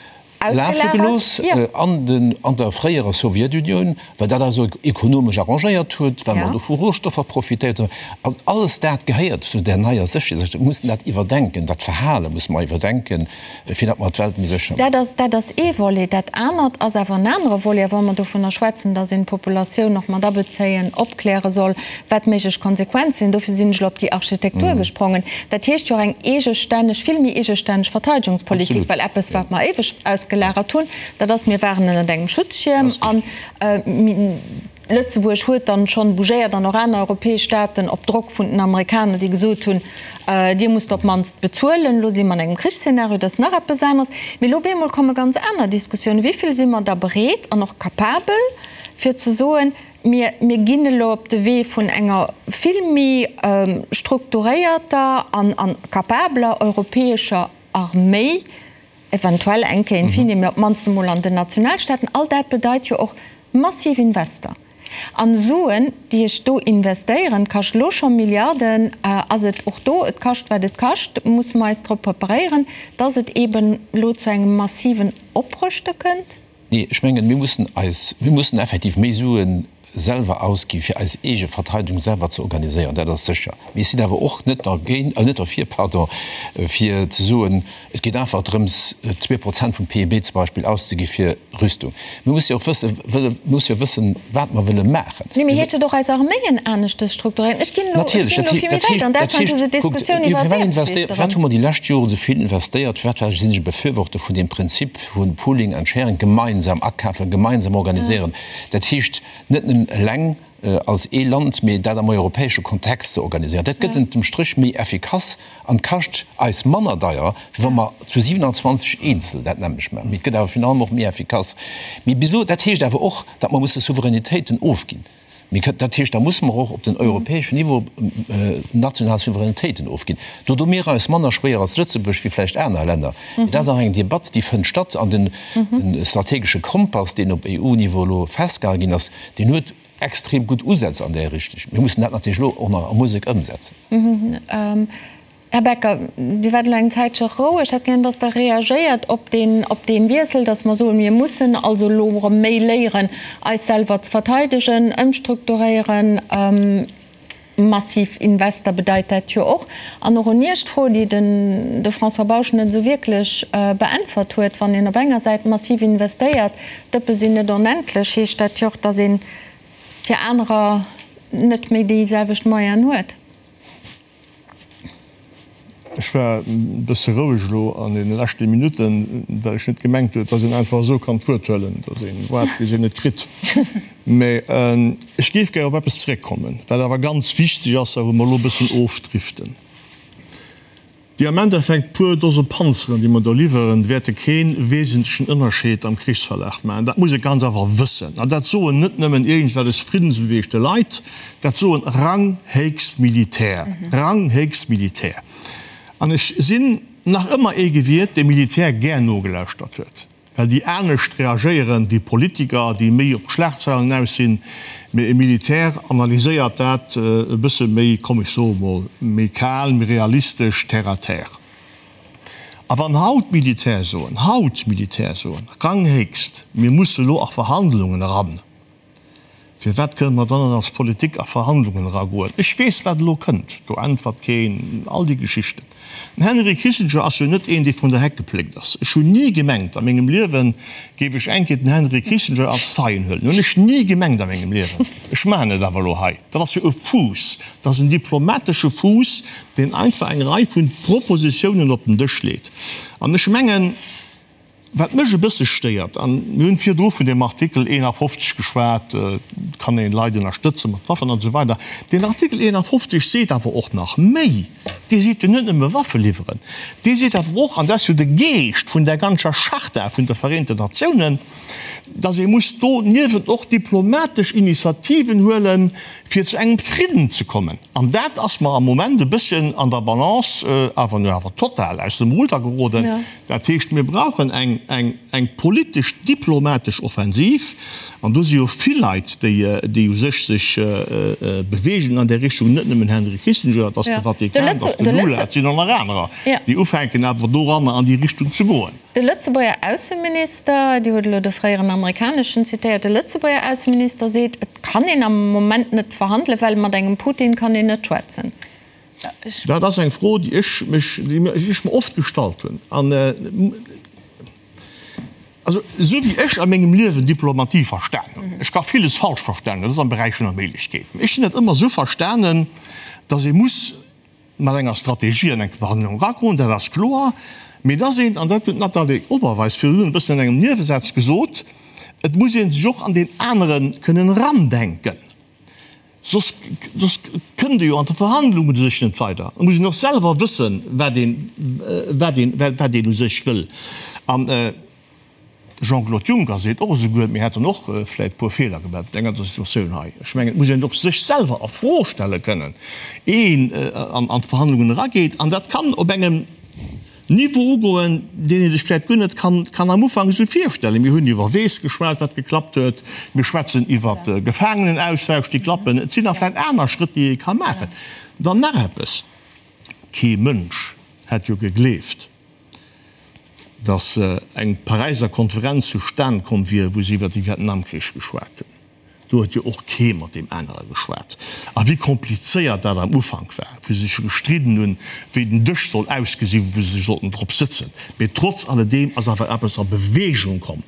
[SPEAKER 4] lafe gelooss an der fréierer Sowjetunioun, well dat eis ekonomesch arrangéiert huet, well mer do vu Rohstoffer profitéiert hunn. Also alles dat gehéiert zu där neier Sécherheets. Mir mussen dat iwwerdenken, dat Verhale musse mer iwwerdenken, fir datt mer d'Welt méi sécher
[SPEAKER 2] maachen. Dat ass ee Volet. Dat anert ass awer en anere Volet. A wa mer dovunner schwätzen, datt een d'Populatioun och mat abezéien, opkläre soll, wat méiglech Konsequenze sinn, dofir sinn ech elo op déi Architektur gesprongen, dat heescht jo och eng eegestänneg, vill méi eegestänneg Verteidigungspolitik, well eppes, wat mer éiweg ausgelagert hunn, dat ass, mir waren ënnert engem Schutzschierm an Lëtzebuerg huet dann schonn bougéiert an och aner europäesch Staaten op Drock vun den Amerikaner, déi gesot hunn, Dir musst op d'mannst bezuelen. Elo si mer an engem Krichsszenario, dat ass nach eppes aneres. Mee elo op eemol komme ganz aner Diskussiounen. Wéi vill si mer da bereet an och capabel, fir ze soen, Mir, mir ginn elo op de Wee vun enger vill méi strukturéierter an, an capabeler europäescher Arméi, eventuell eng Kéier in fine, mee op d'mannst emol an den Nationalstaaten. All dat bedeit jo och massiv Invester. An Suen, déi ech do investéieren, kascht elo scho Milliarden, ass et och do, et kascht wat et kascht, musse mer eis drop preparéieren, dass et eeben elo zu engem massiven Oprëschte kënnt.
[SPEAKER 4] Nee, ech mengen, mir mussen eis, mir mussen effektiv méi Sue selwer ausgi fir eis eege Verteidigung selwer ze organiséieren, dat ass sécher. Mee ech sinn awer och net dergéint, net derfir, pardon, fir ze soen, et geet einfach drëms, 2% vum PIB zum Beispill auszegi fir Rüstung. Mir musse jo och wëssen, wëlle, mir musse jo wëssen, wat mer wëlle maachen.
[SPEAKER 2] Nee, mee heescht et och eis Arméien aneschtes strukturéieren? Ech ginn elo, ech ginn elo vill méi wäit. An Däitschland hu se d'Diskussioun iwwer Wehrpflicht
[SPEAKER 4] erëm. Firwat hu mer déi lescht Joren esou vill investéiert? Firwat war, sinn ech e Befürworter vun deem Prinzip vu Pooling and Sharing, gemeinsam akafen, gemeinsam organiséieren. Dat heescht net nëmmen eleng als ee Land, mee dat am europäesche Kontext ze organiséieren. Dat gëtt ënnert dem Stréch méi effikass an kascht eis manner deier, wéi wa mer zu 27 eenzel dat nämmlecht maachen. Mee et gëtt awer virun allem och méi effikass. Mee bis elo, dat heescht awer och, datt mer musse Souveränitéiten ofginn. Mee dat heescht, da musse mer och op den europäeschen Niveau national Souveränitéiten ofginn. Do doe mir eis manner schwéier als Lëtzebuerg wéi vläicht aner Länner. Mee dat ass nach eng Debatt, déi fënnt statt. An den strategesche Kompass, deen op EU-Niveau elo festgehale ginn ass, deen huet extrem gutt Usätz an där Richtung. Mir mussen dat natierlech elo och nach a Musek ëmsetzen.
[SPEAKER 2] Här Becker, Dir waart elo eng Zäitche roueg. Ech hätt gären, datt Der reagéiert op deen, op dee Wiessel, datt mer soen, mir mussen also elo erëm méi léieren, eis selwer ze verteidegen, ëmstrukturéieren. Massiv Invester bedeit dat jo och. An och un Iech d'Fro, déi den de François Bausch net esou wierklech beäntwert huet, Wann een op enger Säit massiv investéiert, d'Dëppe sinn net onendlech, heescht dat jo och, datt ee fir anerer net méi déi selwecht Moyenen huet.
[SPEAKER 3] Ech war e bësse roueg elo an deene leschte Minutten, well ech net gemengt huet, datt een einfach esou kann d'Wuert huelen, datt ee waart, bis een et kritt. Mä ech géif gär op eppes zeréckkommen, wat awer ganz wichteg ass a wou mer elo e bëssen ofdriften. Déi am Endeffekt puer Dose Panzeren, déi mer do liwweren, wäerte kee wesentlechen Ënnerscheed am Krichsverlaf maachen. Dat muss ee ganz einfach wëssen. An dat soen net nëmmen iergendwellech friddensbeweegte Leit, dat soen ranghéchst Militär, ranghéchst Militär. An ech sinn nach ëmmer ee gewiert, dee Militär gär nogelauschtert huet. Well déi anescht reagéieren wéi Politiker, déi méi op d'Schlagzeilen aus sinn. Mee e Militär analyséiert dat e bësse méi, komm ech soe mol, méi kal, méi realistesch, terre à terre. A wann haut d'Militär soen, haut d'Militär soen, ranghéchst, mir musse lo a Verhandlungen eran, Firwat kënne mer dann net als Politik a Verhandlungen eragoen? Ech weess, wat elo kënnt, do äntwert keen, all déi Geschichten. Den Henry Kissinger ass jo net een, dee vun der Heck gepléckt ass. Ech hunn ni gemengt a mengem Liewen, géif ech eng Kéier den Henry Kissinger als Zeien huelen. Hunn ech ni gemengt a mengem Liewen. Ech maachen et awer elo hei. Dat ass jo e Fuuss, dat ass en diplomatesche Fuuss, deen einfach eng Rei vu Propositiounen op den Dësch leet. An ech mengen, Wat mech e bësse stéiert, an mir hunn virdru vun deem Artikel 51 geschwat, et kann een Leit ënnerstëtze mat Waffen an esou weider, deen Artikel 51 seet awer och nach méi. Dee seet jo net nëmme Waffe liwweren, dee seet awer och, an dat ass jo de Geescht vun där ganzer Charta vun de Vereenten Natiounen, datt ee muss doniewent och diplomatesch Initiativen huelen, fir zu engem Fridden ze kommen. An dat ass mer am Moment e bësschen an der Balance awer nu awer total aus dem Ruder geroden. Dat heescht, mir brauchen eng, eng, eng politesch, diplomatesch Offensiv. An do si jo vill Leit, déi, déi u sech sech beweegen an där Richtung, net nëmmen Henry Kissinger, et ass de Vatikan, et ass de Lula, et sinn och nach anerer, déi ufänken awer doranner an déi Richtung ze goen.
[SPEAKER 2] De Lëtzebuerger Ausseminister, Dir hutt elo de fréieren amerikaneschen zitéiert, de Lëtzebuerger Ausseminister seet, et kann een am Moment net verhandelen, well mat engem Putin kann een net schwätzen.
[SPEAKER 3] Dat ass eng Fro, déi ech mech, déi ech mer oft gestallt hunn. An also esou wéi ech a mengem Liewen Diplomatie verstanen hunn, ech ka villes falsch verstanen, dat ass am Beräich vun der Méiglechkeet, mä ech hunn dat ëmmer esou verstanen, datt ee muss mat enger Strategie an eng Verhandlung eragoen, dat ass kloer, mee datt een, an dat huet d'Nathalie Oberweis virdrun e bëssen an engem Niewesaz gesot, et muss ee sech och an deen anere kënnen erandenken. Soss, soss kënnt ee jo an de Verhandlungen u sech net weider. Et muss een och selwer wëssen, wat een, wat een, wat een u sech wëll. An Jean-Claude Juncker seet och esouguer, mir hätten och vläicht e puer Feeler gemaach an der ganzer Situatioun hei. Ech mengen, et muss een och sech selwer a Fro stelle kënnen, ier een an d'Verhandlungen erageet. An dat kann op engem Niveau ugoen, deen ee sech vläicht guer net kann am Ufank esou virstellen. Mir hunn iwwer Weess geschwat, wat geklappt huet. Mir schwätzen iwwer Gefaangenenaustausch, déi klappen. Et sinn nach vläicht aner Schrëtt, déi ee ka maachen. Dann nach eppes, Kee Mënsch hätt jo gegleeft, datt eng Paräiser Konferenz zustan komm wier, wou se iwwer de Vietnamkrich geschwat hunn. Do huet jo och kee mat deem anere geschwat. A wéi komplizéiert dat am Ufank war, wou se sech gestridden hunn, wéi den Dësch soll ausgesinn, wou se sollten drop sëtzen. Mee trotz alledeem ass awer eppes a Bewegung komm.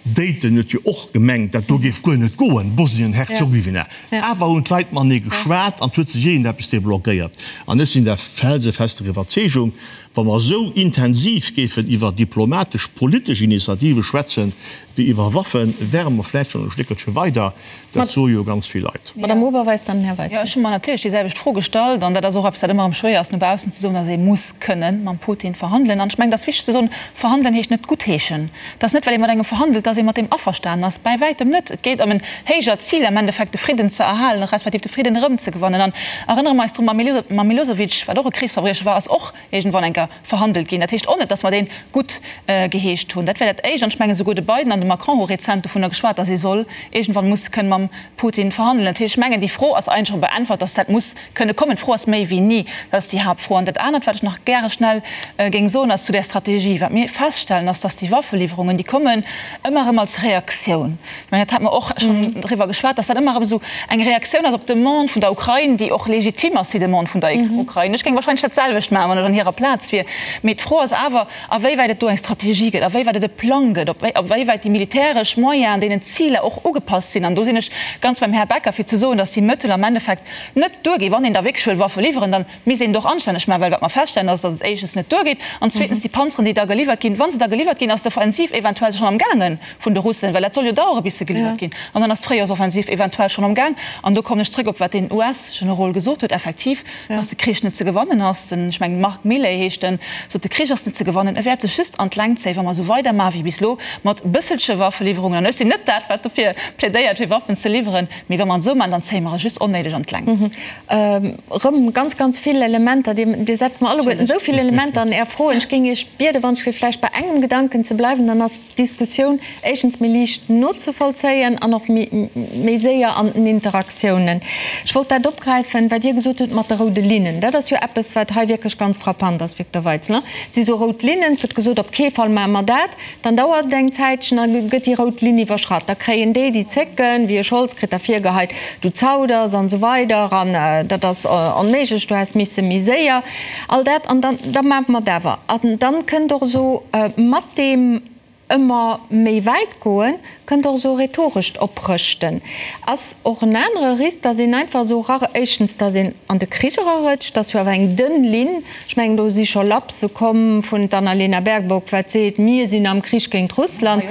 [SPEAKER 3] Dayton huet jo och gemengt, dat do géif guer net goen, Bosnien-Herzogowina. Awer hunn d'Leit matenee geschwat an et huet sech iergendeppes deblockéiert. An ech sinn der felsefester Iwwerzeegung, Wa mer esou intensiv géifen iwwer diplomatesch, politesch Initiative schwätzen, wéi iwwer Waffen, wäre mer vläicht schonn e Stéckelche weider. Dat soe jo ganz vill Leit.
[SPEAKER 2] Madame Oberweis, dann Här Weizen.
[SPEAKER 6] Jo, ech hu mer natierlech déi selwecht Fro gestallt. An dat ass och eppes, wat ëmmer erëm schwéier ass no baussen ze soen, dass ee muss kënnen mam Putin verhandelen. An ech mengen, et ass wichteg ze soen, Verhandelen heescht net guttheeschen. Et ass net, well ee mat engem verhandelt, dass ee mat deem averstanen ass. Bäi wäitem net. Et geet ëm en héijert Zil, am Endeffekt de Fridden ze erhalen, respektiv de Fridden erëmzegewannen. An erënnere mer eis drun, mam Milosevic, wat och e Krichsverbriecher war, ass och iergendwann eng Kéier verhandelt ginn. Dat heescht och net, dass mer dee gutt geheescht hunn. Dat wär dat Éischt. An ech mengen, esouguer de Biden an de Macron hu rezent dovunner geschwat, dass ee soll iergendwann muss kënne mam Putin verhandelen. Dat heescht, ech mengen, déi Fro ass eigentlech scho beäntwert, dass dat muss kënne kommen. D'Fro ass méi wéini. Dat ass déi Haaptfro. An dat anert, wat ech nach gäre schnell géing soen, ass zu där Strategie. Wat mir feststellen, ass, dass déi Waffeliwwerungen, déi kommen ëmmer erëm als Reaktioun. Ech mengen, dat hate mer och schonn driwwer geschwat, dass dat ëmmer erëm esou eng Reaktioun ass op d'Demande vun der Ukrain, déi och legitim ass, déi Demande vun der Ukrain. Ech géing wahrscheinlech dat selwecht maachen, wann ech an hirer Plaz wier. Mee d'Fro ass awer, awéiwäit et do eng Strategie gëtt, awéiwäit et e Plang gëtt, awéiwäit déi militäresch Moyenen deenen Ziler och ugepasst sinn. An do sinn ech ganz beim Här Becker, fir ze soen, dass déi Mëttel am Endeffekt net duerginn. Wann een da wierklech wëll Waffe liwweren, da misst een et och anstänneg maachen, well wat mer feststellen, ass, dass et éischtens net duergeet an zweetens déi Panzeren, déi da geliwwert ginn, wa se da geliwwert ginn, ass d'Offensiv eventuell schonn amgaange vun de Russen, well dat soll jo dauere bis se geliwwert ginn, an dann ass d'Fréijoersoffensiv eventuell schonn amgaang. An do kommen ech zrëck op wat deen US-Generol gesot huet, effektiv, dass de Krich net ze gewannen ass. Den, ech mengen Mark Milley heescht en, sot, de Krich ass net ze gewannen, e wäert sech just an d'Längt zéien, wa mer esou weidermachen wéi bis elo mat bësselche Waffeliwwerungen. An ech sinn net dat, wat dofir plädéiert, fir Waffen ze liwweren, mee wa mer et esou maachen, dann zéie mer e just onnéideg an d'Längt.
[SPEAKER 2] Erëm ganz, ganz vill Elementer. Dir setzt mer alleguerten esou vill Elementer an Är Froen. Ech géing Iech bieden, wann ech fir vläicht bei engem Gedanken ze bleiwen, dann ass d'Diskussioun éischtens méi liicht nozevollzéien an och méi séier an den Interaktiounen. Ech wollt dat opgräifen, wat Dir gesot hutt mat de roude Linnen. Dat ass jo eppes, wat hei wierklech ganz frappant ass, Victor Weitzel. Et si sou rout Linnen, et gëtt gesot, op kee Fall maache mer dat. Dann dauert et eng Zäitchen a gëtt déi rout Linn iwwerschratt. Da kréien déi, déi zécken, wéi e Scholz kritt da virgeheit, du zauders an esou weider an dat ass onméiglech, du häss misse méi séier. All dat an dann, da maache mer et awer. An dann kënnt och esou mat deem ëmmer méi wäit goen, kënnt och esou rhetorescht Oprëschten. Ass och en anere Risk, datt een einfach esou era, éischtens, datt een an de Krich erarëtscht, dat ass jo awer eng dënn Linn, ech mengen do si scho Lapse komm vun d'Annalena Baerbock, wat seet, mir sinn am Krich géint Russland.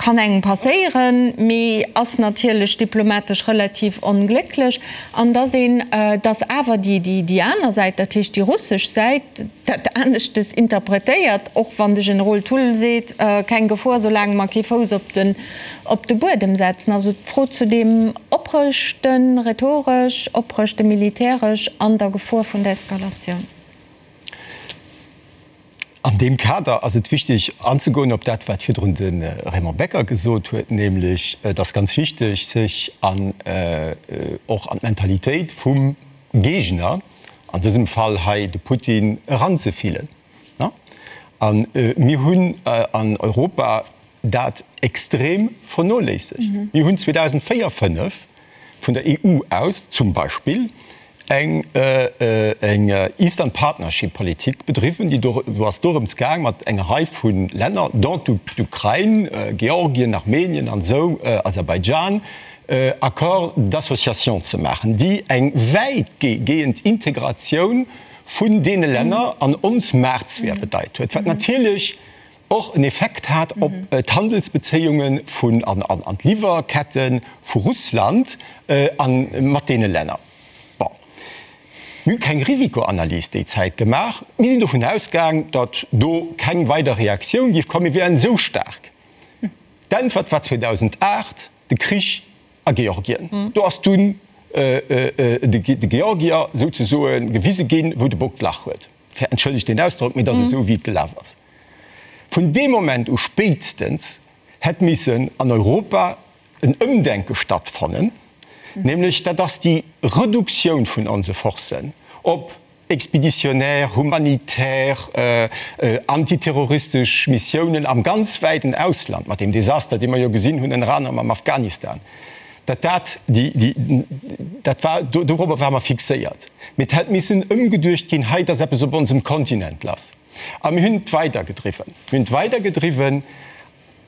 [SPEAKER 2] Kann engem passéieren, mee ass natierlech diplomatesch relativ onglécklech. An dass een, dass awer déi, déi aner Säit, dat heescht déi russesch Säit, dat aneschtes interpretéiert, och wann de Generol Thull seet, keng Gefor, soulaang mer kee Fouss op den, op de Buedem setzen. Also d'Fro zu deem Oprëschten, rhetoresch, Oprëschte militäresch an der Gefor vun der Eskalatioun.
[SPEAKER 5] An deem Kader ass et wichtig anzegoen op dat, wat virdrun de Raymond Becker gesot huet, nämlech et ass ganz wichteg, sech an och an d'Mentalitéit vum Géigner, an dësem Fall hei de Putin, eranzefillen. A mir hunn an Europa dat extrem vernoléissegt. Mir hunn 2004, 5 vun der EU aus zum Beispill eng Eastern Partnership Politik bedriwwen, déi do ass dorëms gaang mat enger Rei vu Länner, dont d'Ukrain, Georgien, Armenien an esou, Aserbaidschan, Accords d'association ze maachen, déi eng wäitgehend Integratioun vun deene Länner an ons Maartsphär bedeit huet, wat natierlech och en Effekt hat op d'Handelsbezéiunge vun an d'Liwwerkette vu Russland a mat deene Länner. Bon, mir hu keng Risikoanalys déi Zäit gemaach. Mir sinn dovun ausgaang, datt do keng weider Reaktioun géif kommen. Mir wären esou staark. D'Äntwert war 2008 de Krich a Georgien. Do ass dunn de Georgier souzesoe gewise ginn, wou de Bock d'Lach huet. Entschëllegt deen Ausdrock, mee et ass esou, wéi et gelaf ass. Vun deem Moment u spéitstens hätt missen an Europa en Ëmdenke stattfannen, nämlech dat ass déi Reduktioun vun onse Forcen op expéditionnaire, humanitär, antiterroristesch Missiounen am ganz wäiten Ausland, mat deem Desaster, dee mer jo gesinn hunn ënner anerem am Afghanistan. Datt dat déi, déi, dat war, dorobber ware mer fixéiert. Mee et hätt missen ëmgeduecht ginn, hei, et ass eppes op onsem Kontinent lass. A mir hunn et weidergedriwwen. Mir hunn et weidergedriwwen,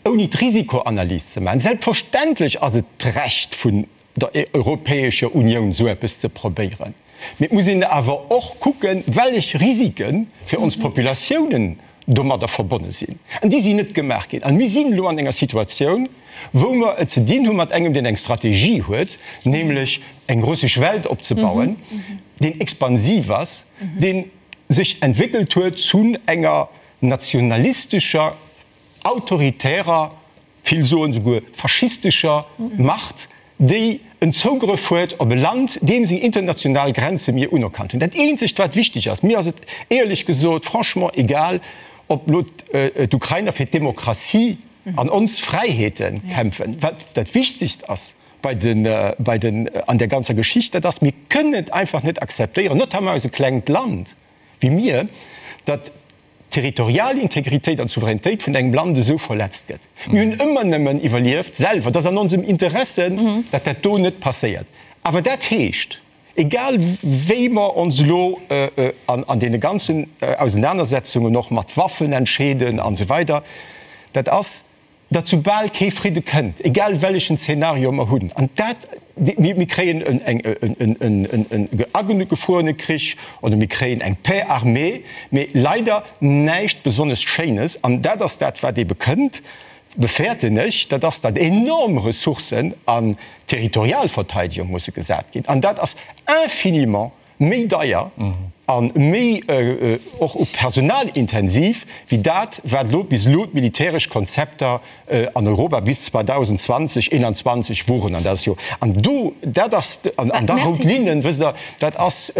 [SPEAKER 5] ouni d'Risikoanalys ze maachen. Selbstverständlech ass et d'Recht vun der Europäescher Unioun, esou eppes ze probéieren. Mee et muss een awer och kucken, wellech Risike fir ons Populatiounen domadder verbonne sinn. An déi sinn net gemaach ginn. An mir sinn elo an enger Situatioun, wou mer et ze dinn hu mat engem, deen eng Strategie huet, nämlech eng russesch Welt opzebauen, deen expansiv ass, dee sech entwéckelt huet zu enger nationalistescher, autoritärer, vill soen souguer faschistescher Macht, déi en Zougrëff huet op e Land, deem seng international Grenze mir unerkannt hunn. Dat eenzegt wat wichteg ass, mir ass et éierlech gesot franchement egal, ob elo d'Ukrainer fir d'Demokratie an ons Fräiheete kämpfen. Wat dat Wichtegst ass bei den, bei den, an där ganzer Geschicht, dat ass, mir kënnen et einfach net akzeptéieren, notamment eis e klengt Land wéi mir, datt d'territorial Integritéit an d'Souveränitéit vun engem Land esou verletzt gëtt. Mir hunn ëmmer nëmmen iwwerlieft selwer. Et ass an onsem Interesse, datt dat do net passéiert. Awer dat heescht, egal wéi mer ons elo an deene ganzen Ausenanersetzungen och mat Waffen entscheeden an esou weider, dat ass, datt soubal kee Fridde kënnt, egal wellechen Zeenario mer hunn, an dat, mir kréien en agefruerene Krich oder mir kréien eng Paix armée, mee leider näischt besonnesch Schéines. An dat ass dat, wat ebe kënnt, befäerten ech, dat ass, datt enorm Ressourcen an d'Territorialverteidigung musse gesat ginn. An dat ass infiniment méi deier a méi och u Personal intensiv wéi dat, wat elo bis elo d'militäresch Konzepter an Europa bis 2020, 2021 woren. An dat ass jo, an do, dat ass, an da rout Linnen, wësst Der, dat ass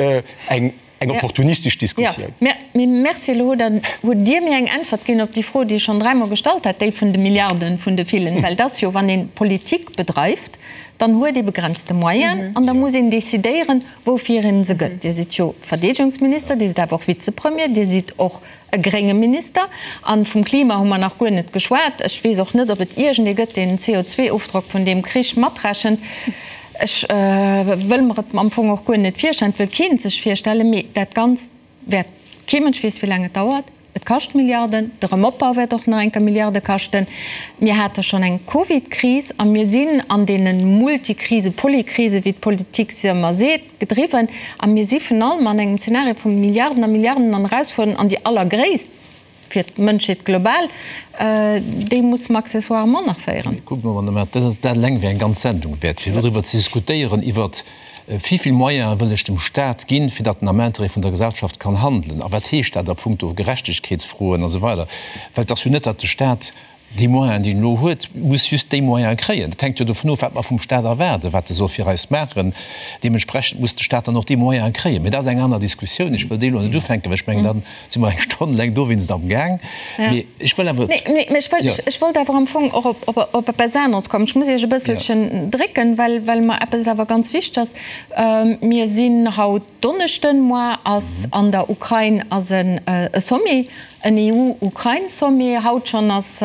[SPEAKER 5] eng opportunistesch Diskussioun.
[SPEAKER 2] Jo, mee Merci. Elo hutt Der, hutt Dir mir eng Äntwert ginn op déi Fro, déi ech schonn dräimol gestallt hat, déi vun de Milliarden, vun de villen. Well et ass jo, wann ee Politik bedreift, dann huet ee begrenzte Moyenen an da muss een decidéieren, woufir een se gëtt. Dir sidd jo Verdeedegungsminister, Dir sidd awer och Vizepremier, Dir sidd och e grénge Minister. A vum Klima hu mer nach guer net geschwat. Ech weess och net, ob et iergendee gëtt, deen den CO2-Ofdrock vun deem Krich matrechent. Ech wëll mer et am Fong och guer net virstellen, et wëll keen et sech virstellen. Mee dat Ganzt wäert, kee Mënsch weess, wéi laang et dauert. Et kascht Milliarden, de Remopbau wäert och nach eng Kéier Milliarde kaschten. Mir hate schonn eng Covid-Kris a mir sinn an deene Multikrise, Polykrise, wéi d'Politik se ëmmer seet, gedriwwen. A mir si vun allem an engem Zeenario vu Milliarden a Milliarden an Erausfuerderungen an déi allergréisst. fir d'Mënschheet global, déi musse mer accessoirement nach féieren.
[SPEAKER 4] Kuckt mol, Madame Err, dat ass, dat eleng wär eng ganz Sendung wäert, fir elo driwwer ze diskutéieren, iwwert wéi vill Moyene wëll ech dem Stat ginn, fir datt en am Intérêt vun der Gesellschaft kann handelen, a wat heescht dat a puncto Gerechtegkeetsfroen a sou weider. Well et ass jo net, datt de Stat Déi Moyenen, déi en elo huet, muss just déi Moyene kréien. Dat hänkt jo dovun of, wat mer vum Stat erwaarden, wat e soll fir eis maachen. Deementsprechend muss de Stat dann och déi Moyene kréien. Mee dat ass eng aner Diskussioun. Ech wëll déi elo net ufänken, well ech mengen, da si mer eng Stonn laang dowéinst amgaang. Mee ech wëll awer.
[SPEAKER 2] Mee ech wëll, ech wollt awer am Fong och op, op eppes aneres kommen. Ech muss Iech e bësselchen drécken, well, well mer eppes awer ganz wichteg ass. Mir sinn haut Donneschden, Moar ass an der Ukrain ass e Sommet, en EU-Ukrain-Sommet. Haut schonn ass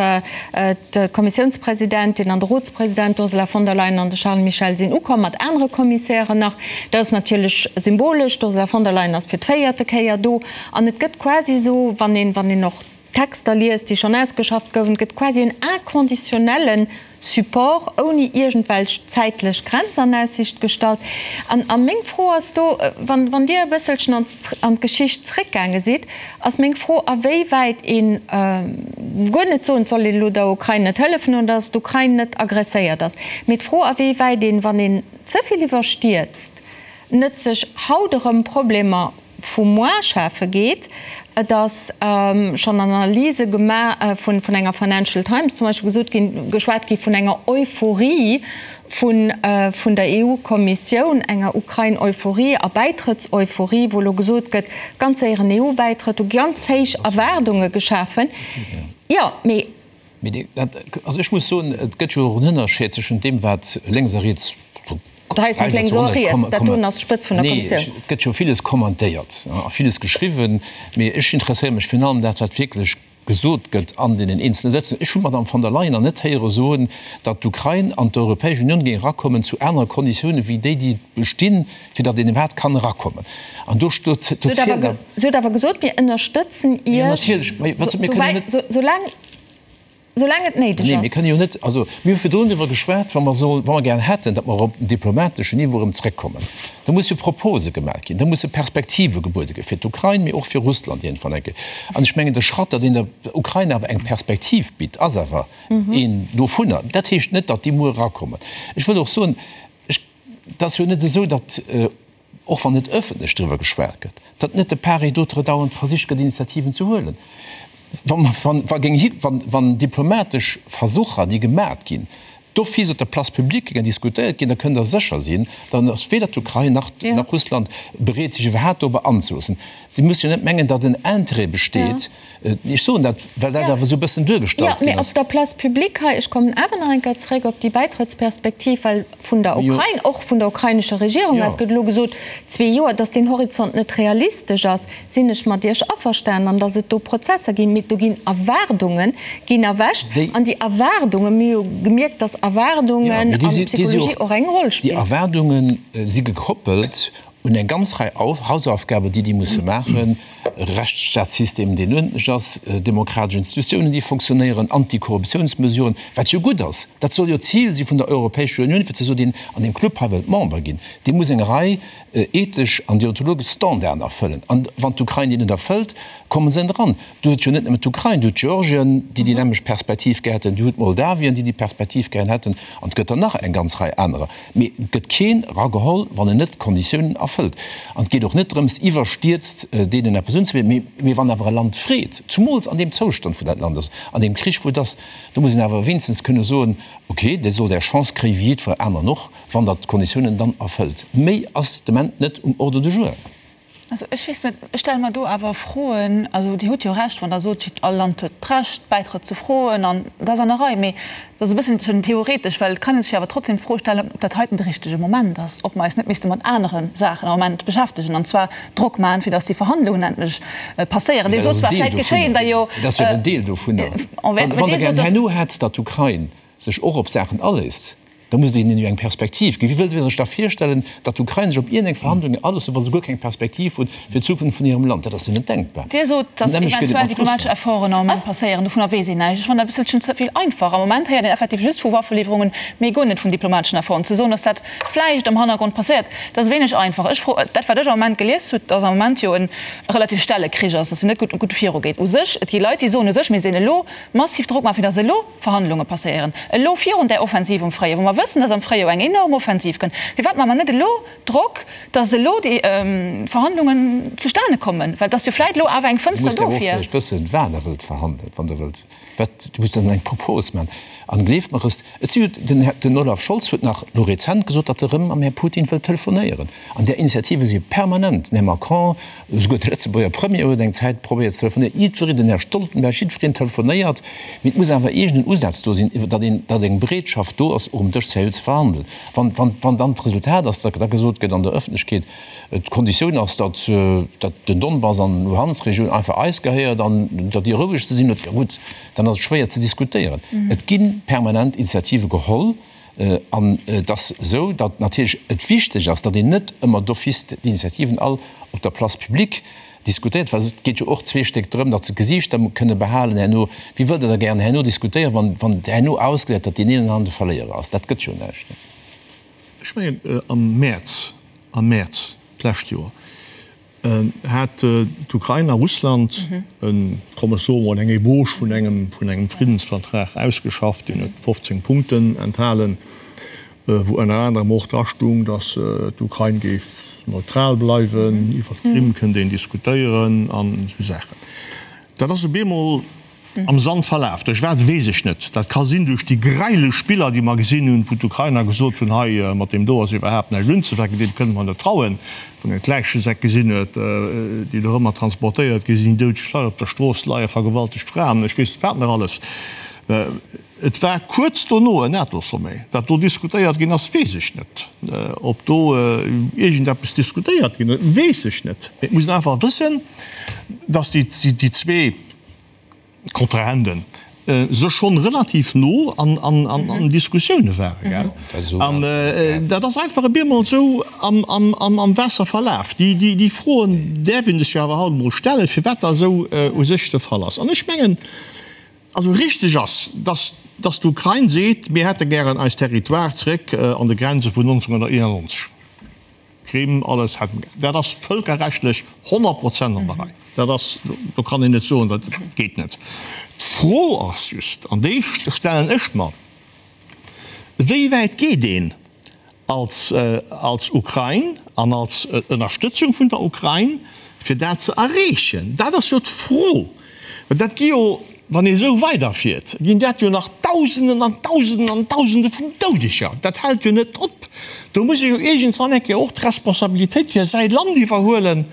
[SPEAKER 2] d'Kommissiounspresidentin an de Rotspresident, d'Ursula von der Leyen an de Charles Michel sinn ukomm, mat anere Kommissären nach. Dat ass natierlech symbolesch, d'Ursula von der Leyen ass fir d'véierte Kéier do an et gëtt quasi esou, wann een, wann een och Texter liest, déi schonn ausgeschafft gouwen, et gëtt quasi en inconditionnelle Support ouni iergendwelch zäitlech Grenz an Aussicht gestallt. An a meng Fro ass do, wann, wann Dir e bësselchen an an d'Geschicht zréckgaange sidd, ass meng Fro, a wéi wäit een, guer net soen, et soll een elo der Ukrain net hëllefen oder datt d'Ukrain net agresséiert ass, mee d'Fro, a wéi wäit een, wann een ze vill iwwerstierzt, net sech haut erëm Problemer vu moar schafe geet. Et ass schonn an Analyse gemaach vun enger Financial Times zum Beispill gesot ginn, geschwat gi vun enger Euphorie vun vun der EU-Kommissioun, enger Ukrain-Euphorie a Bäitrëttseuphorie, wou elo gesot gëtt, ganz séieren EU-Bäitrëtt, do gi ganz héich Erwaardunge geschafen. Jo, mee.
[SPEAKER 4] Mee dat, also ech muss soen, et gëtt jo och en Ënnerscheed zwëschent deem, wat lénks a riets,
[SPEAKER 2] Dat hei ass net lénks oder riets, dat doen ass d'Spëtz vun der Kommissioun.
[SPEAKER 4] Nee, et gëtt jo villes kommentéiert a villes geschriwwen, mee ech interesséiere mech virun allem dat, wat wierklech gesot gëtt an deenen eenzele Sëtzungen. Ech hunn d'Madame von der Leyen nach net héiere soen, datt d'Ukrain an d'Europäesch Unioun géing erakommen zu anere Konditiounen wéi déi, déi bestinn, fir datt een iwwerhaapt kann erakommen. An do, do zielen.
[SPEAKER 2] Si huet awer gesot, mir ënnerstëtzen Iech, soulaang. Soulaang et néideg
[SPEAKER 4] ass. Nee, mir kënne jo net, also mir hu virdrun driwwer geschwat, wa mer soll, wa mer gär hätten, datt mer op den diplomateschen Niveau erëm zrëckkommen, da musse Propose gemaach ginn, da musse Perspektive gebuede gi fir d'Ukrain, mee och fir Russland iergendwann eng Kéier. An ech mengen, de Schratt, datt een der Ukrain awer eng Perspektiv bitt, ass awer een dovunner. Dat heescht net, datt déi muer erakommen. Ech wëll och soen, ech, et ass jo net esou, datt, och wann net ëffentlech driwwer geschwat gëtt, datt net de part et d'autre dauernd versicht gëtt, Initiativen ze huelen. Wann diplomatesch Versucher, déi gemat ginn, d'office op der Place publique géingen diskutéiert ginn, da kënnt Der sécher sinn, dann ass weder d'Ukrain nach Russland bereet, sech iwwerhaapt dorobber anzeloossen. Dir musst jo net mengen, datt en Intérêt besteet, ech soen dat, well dat awer esou e bëssen duergestallt
[SPEAKER 2] ginn ass. Jo, mee op der Place publique hei, ech kommen awer nach eng Kéier zréck op déi Bäitrëttsperspektiv, well vun der Ukrain, och vun der ukrainescher Regierung aus gëtt elo gesot, zwee Joer, datt deen Horizont net realistesch ass, sinn ech mat Iech averstanen, an datt et do Prozesser ginn. Mee do ginn Erwaardunge ginn erwächt, an déi Erwaardungen, mir hu jo gemierkt, datt Erwaardungen an Psychologie och eng Roll
[SPEAKER 4] spillen. Déi Erwaardunge si gekoppelt un eng ganz Rei Hausaufgaben, déi déi musse maachen, Rechtsstaatssystem, deen uerdentlech ass, demokratesch Institutiounen, déi fonctionnéieren, Antikorruptiounsmesuren, wat jo gutt ass. Dat soll jo d'Zil si vun der Europäescher Unioun, fir ze soen, deen an deem Club hei wëllt Member ginn, dee muss eng Rei ethesch an deontologesch Standarden erfëllen. An wann d'Ukrain déi net erfëllt, komme se net eran. Do huet jo net nëmmen d'Ukrain, do huet Georgien, déi déi nämmlecht Perspektiv gär hätten, do huet Moldawien, déi déi Perspektiv gären hätten, an et gëtt der nach eng ganz Rei anerer. Mee et gëtt keen erageholl, wann en net d'Konditiounen erfëllt. An et geet och net drëms, iwwerstierzt deenen eppes unzebidden. Mee wann awer e Land freet, zumools an deem Zoustand, wou dat Land ass, an deem Krich, wou et ass, do muss een awer wéinstens kënne soen, okay, Dir sollt Är Chance kréien, wéi jiddwer aneren och, wann Der d'Konditiounen dann erfëllt. Méi ass de Moment net um Ordre du jour.
[SPEAKER 6] Also ech weess net, ech stelle mer do awer Froen. Also Dir hutt jo Recht, wann Der sot, all Land huet d'Recht, Bäitrëtt ze froen, an dat ass an der Rei. Mee dat ass e bësselchen theoretesch, well et kann ee sech jo awer trotzdem d'Fro stellen, ob dat heiten de richtege Moment ass, ob mer eis net misste mat anere Saachen am Moment beschäftegen, an zwar Drock maachen, fir datt déi Verhandlungen endlech passéieren.
[SPEAKER 4] Dir sot zwar, vläicht geschéien der jo. Dat ass jo en Deel dovunner. Wann Der gären herno hätt, datt d'Ukrain sech och op Saachen aléisst. Da musst Der hinnen jo eng Perspektiv ginn. Wéi wëllt Der sech da virstellen, datt d'Ukrain sech op iergendeng Verhandlungen aloossen, wa se guer keng Perspektiv hunn fir d'Zukunft vun hirem Land? Dat ass jo net denkbar.
[SPEAKER 6] Dir sot, datt eventuell diplomatesch Efforten am Moment passéieren. Dovunner weess een näischt. Ech fannen dat e bësselchen ze vill einfach. Am Moment héiert een effektiv just vu Waffeliwwerungen, mee guer net vun diplomateschen Efforten. Ze soen, datt dat vläicht am Hannergrond passéiert, dat ass wéineg einfach. Ech fro, dat wat ech am Moment gelies hutt, datt am Moment jo e relativ stelle Krich ass, datt jo net gutt gutt virugeet u sech. Et gi Leit, déi soen, u sech misst een elo massiv Drock maachen, fir datt elo Verhandlunge passéieren, elo virun där Offensiv um Fréijoer, wou mer wëssen, datt am Fréijoer eng enorm Offensiv kënnt. Firwat maache mer net elo Drock, datt elo déi Verhandlungen zustane kommen? Well et ass jo vläit elo awer eng
[SPEAKER 4] Dir
[SPEAKER 6] Fënster
[SPEAKER 4] musst awer och
[SPEAKER 6] dofir.
[SPEAKER 4] vläicht wëssen, wat Der wëllt verhandelen, wann Der wëllt Wat, du muss dann eng Propos maachen. An gleeft mer es, et si jo, den Här, den Olaf Scholz huet nach elo rezent gesot, datt e rëm mam Här Putin wëllt telefonéieren. An där Initiative si permanent. Den Här Macron, esouguer de Lëtzebuerger Premier huet eng Zäit probéiert ze telefonéieren. Jiddwereen, den Här Stoltenberg, jiddwereen telefonéiert. Mee et muss awer iergend en Usaz do sinn, datt een, datt eng Bereetschaft do ass, och um Dësch seriö ze verhandelen. Wann, wann, wann dann d'Resultat ass, datt da gesot gëtt an der Ëffentlechkeet, D'Konditioun ass, datt den Donbass an d'Luhansk-Regioun einfach eis gehéiert an datt déi roueg ze sinn huet. Jo gutt, dann ass et schwéier ze diskutéieren. Et gi permanent Initiative geholl an et ass esou, datt natierlech et wichteg ass, datt een net ëmmer d'office d'Initiativen all op der Place publique diskutéiert, well et geet jo och zwee Stéck drëm, datt se d'Gesiichter kënne behalen herno. Wie wëllt Der da gären herno diskutéieren, wann wann herno ausgesäit, datt deen een an anere de Verléierer ass? Dat gëtt jo näischt.
[SPEAKER 3] Ech mengen, am Mäerz, am Mäerz d'lescht Joer hat d'Ukrain a Russland en, komm ech soe mol, eng Ébauche vun engem, vun engem Friddensvertrag ausgeschafft. Deen huet 15 Punkten enthalen, wou ënner anerem och drastung, datt d'Ukrain géif neutral bleiwen, iwwer d'Krim kënnt een diskutéieren an esou Saachen. Dat ass op eemol Am Sand verlaf. Duerch wat, weess ech net. Dat ka sinn duerch déi gräilech Spiller, déi mer gesinn hunn, wou d'Ukrainer gesot hunn, hei mat deem do ass iwwerhaapt näischt unzefänken, deem kënne mer net trauen. Wann een d'Läichesäck gesinn huet, déi dorëmmer transportéiert gi sinn, doudeg Leit op der Strooss leien, vergewaltegt Fraen, ech weess net wat nach alles. Et war kuerz dono en NATO-Sommet. Wat do diskutéiert ginn ass, weess ech net. Ob do iergendeppes diskutéiert ginn ass, weess ech net. Mee et muss een einfach wëssen, datt déi zwee, Kontrahenten sech schonn relativ no an Diskussioune waren, gell? An dat ass einfach e bemol esou am Waasser verlaf. Déi Froen däerf een sech jo awer halt emol stellen, firwat dat esou u sech de Fall ass. An ech mengen, also richteg ass, dass dass d'Ukrain seet, mir hätte gären eis Territoire zréck an de Grenze vun 1991. Krim, alles hätten gär. Dat ass vëlkerrechtlech 100 Prozent an der Rei. Dat ass, do kann een net soen, dat geet net. D'Fro ass just, an déi stellen ech mer, Wéi wäit geet een als, als Ukrain an als Ënnerstëtzung vun der Ukrain, fir dat ze erreechen? Dat ass jo d'Fro. Well dat gi jo, wann ee esou weiderfiert, ginn dat jo nach Dausenden an Dausenden an Dausende vun Doudeger. Dat hält jo net op. Do muss ee jo iergendwann eng Kéier och d'Responsabilitéit fir säi Land iwwerhuelen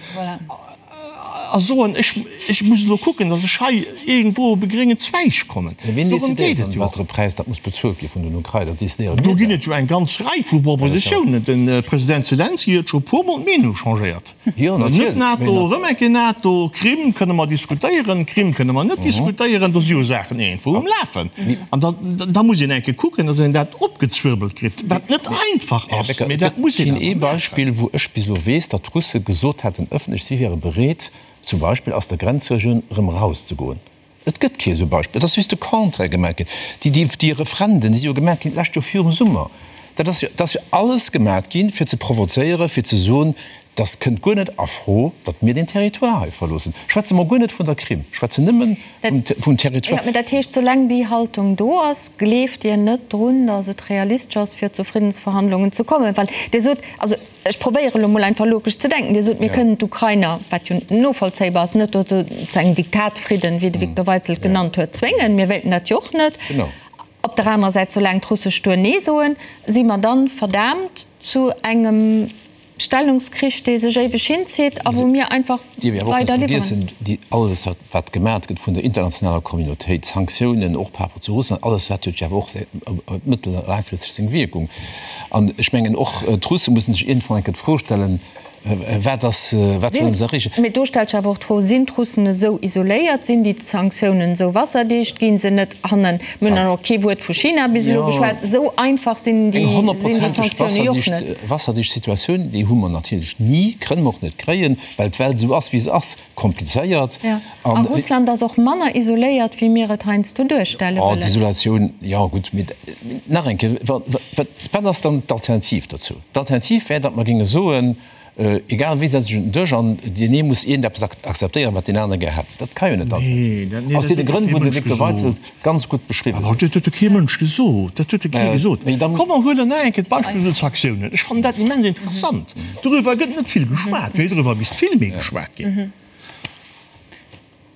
[SPEAKER 3] a soen, ech, ech muss elo kucken, datt ech hei iergendwou op e gréngen Zweig kommen.
[SPEAKER 4] Mä wien
[SPEAKER 3] Dorëm
[SPEAKER 4] decidéiert
[SPEAKER 3] geet
[SPEAKER 4] dann,
[SPEAKER 3] et jo
[SPEAKER 4] wat
[SPEAKER 3] och.
[SPEAKER 4] fir e Präis dat muss bezuelt gi vun den Ukrainer? Dat decidéiere
[SPEAKER 3] Do
[SPEAKER 4] mir
[SPEAKER 3] ginn
[SPEAKER 4] dann.
[SPEAKER 3] et jo eng ganz Rei vu Propositiounen. De President Selenskyj huet scho e puermol d'Meenung changéiert.
[SPEAKER 4] Jo,
[SPEAKER 3] Net
[SPEAKER 4] natierlech.
[SPEAKER 3] NATO, erëm eng Kéier NATO, Krim kënne mer diskutéieren, Krim kënne mer net diskutéieren, do si jo Saachen iergendwou um Lafen. An da, da muss een eng Kéier kucken, datt een dat opgezwirbelt kritt, wat net einfach
[SPEAKER 4] Här
[SPEAKER 3] ass,
[SPEAKER 4] Becker,
[SPEAKER 3] mee
[SPEAKER 4] et
[SPEAKER 3] dat
[SPEAKER 4] gëtt
[SPEAKER 3] muss een
[SPEAKER 4] keen
[SPEAKER 3] awer
[SPEAKER 4] ee
[SPEAKER 3] maachen.
[SPEAKER 4] Beispill, wou ech bis elo weess, datt d'Russe gesot hätten ëffentlech, si wiere bereet, zum Beispill aus der Grenzregioun erëm erauszegoen. Et gëtt kee esou Beispill. Et ass just de Contraire gemaach ginn. Déi, déi, déi Referenden, déi si jo gemaach ginn d'lescht Joer virum Summer. Dat ass jo, dat ass jo alles gemaach ginn, fir ze provozéieren, fir ze soen, dass kënnt guer net a Fro, datt mir deen Territoire hei verloossen. Schwätze mer guer net vun der Krim, schwätzen nëmmen vum, vum Territoire.
[SPEAKER 2] Jo, mä dat heescht, soulaang déi Haltung do ass, gleeft Dir net drun, datt et realistesch ass, fir zu Friddensverhandlungen ze kommen? Well Dir sot, also Ech probéieren elo mol einfach logesch ze denken. Dir sot, mir kënnen d'Ukrainer, wat jo novollzéibar ass, net dozou zu engem Diktatfridden, wéi de Victor Weitzel et genannt huet, zwéngen. Mir wéilten dat jo och net. Op der anerer Säit, soulaang d'Russe stur Nee soen, si mer dann verdaamt zu engem Stellungskrich, dee sech éiweg hinzitt a wou mir einfach
[SPEAKER 4] Dierf ee awer och net
[SPEAKER 2] weider liwweren.
[SPEAKER 4] vergiessen, déi, alles wat, wat gemat gëtt vun der internationaler Communautéit, Sanktiounen och par rapport zu Russland, alles dat huet jo awer och säi, mëttel a laangfristeg seng Wierkung. An ech mengen och d'Russe mussen sech iergendwann eng Kéier d'Fro stellen. Wat ass, wat wëllen se erreechen?
[SPEAKER 2] Mee do stellt sech awer och d'Fro, Sinn d'Russen esou isoléiert? Sinn déi Sanktiounen esou wasserdicht? Ginn se net hannen, mir hunn dann och kee Wuert vu China bis elo geschwat, esou einfach sinn déi
[SPEAKER 4] Eng honnertprozenteg
[SPEAKER 2] Sanktioune jo och net.
[SPEAKER 4] Wasserdicht Situatioun, déi hu mer natierlech ni, kënne mer och net kréien, well d'Welt esou ass, wéi se ass, komplizéiert.
[SPEAKER 2] A Russland ass och manner isoléiert, wéi mir et heiansdo duerstelle
[SPEAKER 4] wëllen. D'Isolatioun, jo gutt, mee nach eng Kéier, wat ass dann d'Alternativ dozou? D'Alternativ wär, datt mer géinge soen, egal wéi, setz dech un den Dësch an deen ee muss iergendeppes akzeptéieren, wat deen anere gär hätt. Dat ka jo net d'Alternativ sinn, aus deene Grënn, wou de Victor Weitzel ganz gutt beschriwwen
[SPEAKER 3] huet. Dat huet jo kee Mënsch gesot. Dat huet jo kee gesot. Komm mer huelen nach eng Kéier d'Beispill vun de Sanktiounen. Ech fannen dat immens interessant. Doriwwer gëtt net vill geschwat, mee doriwwer misst vill méi geschwat ginn.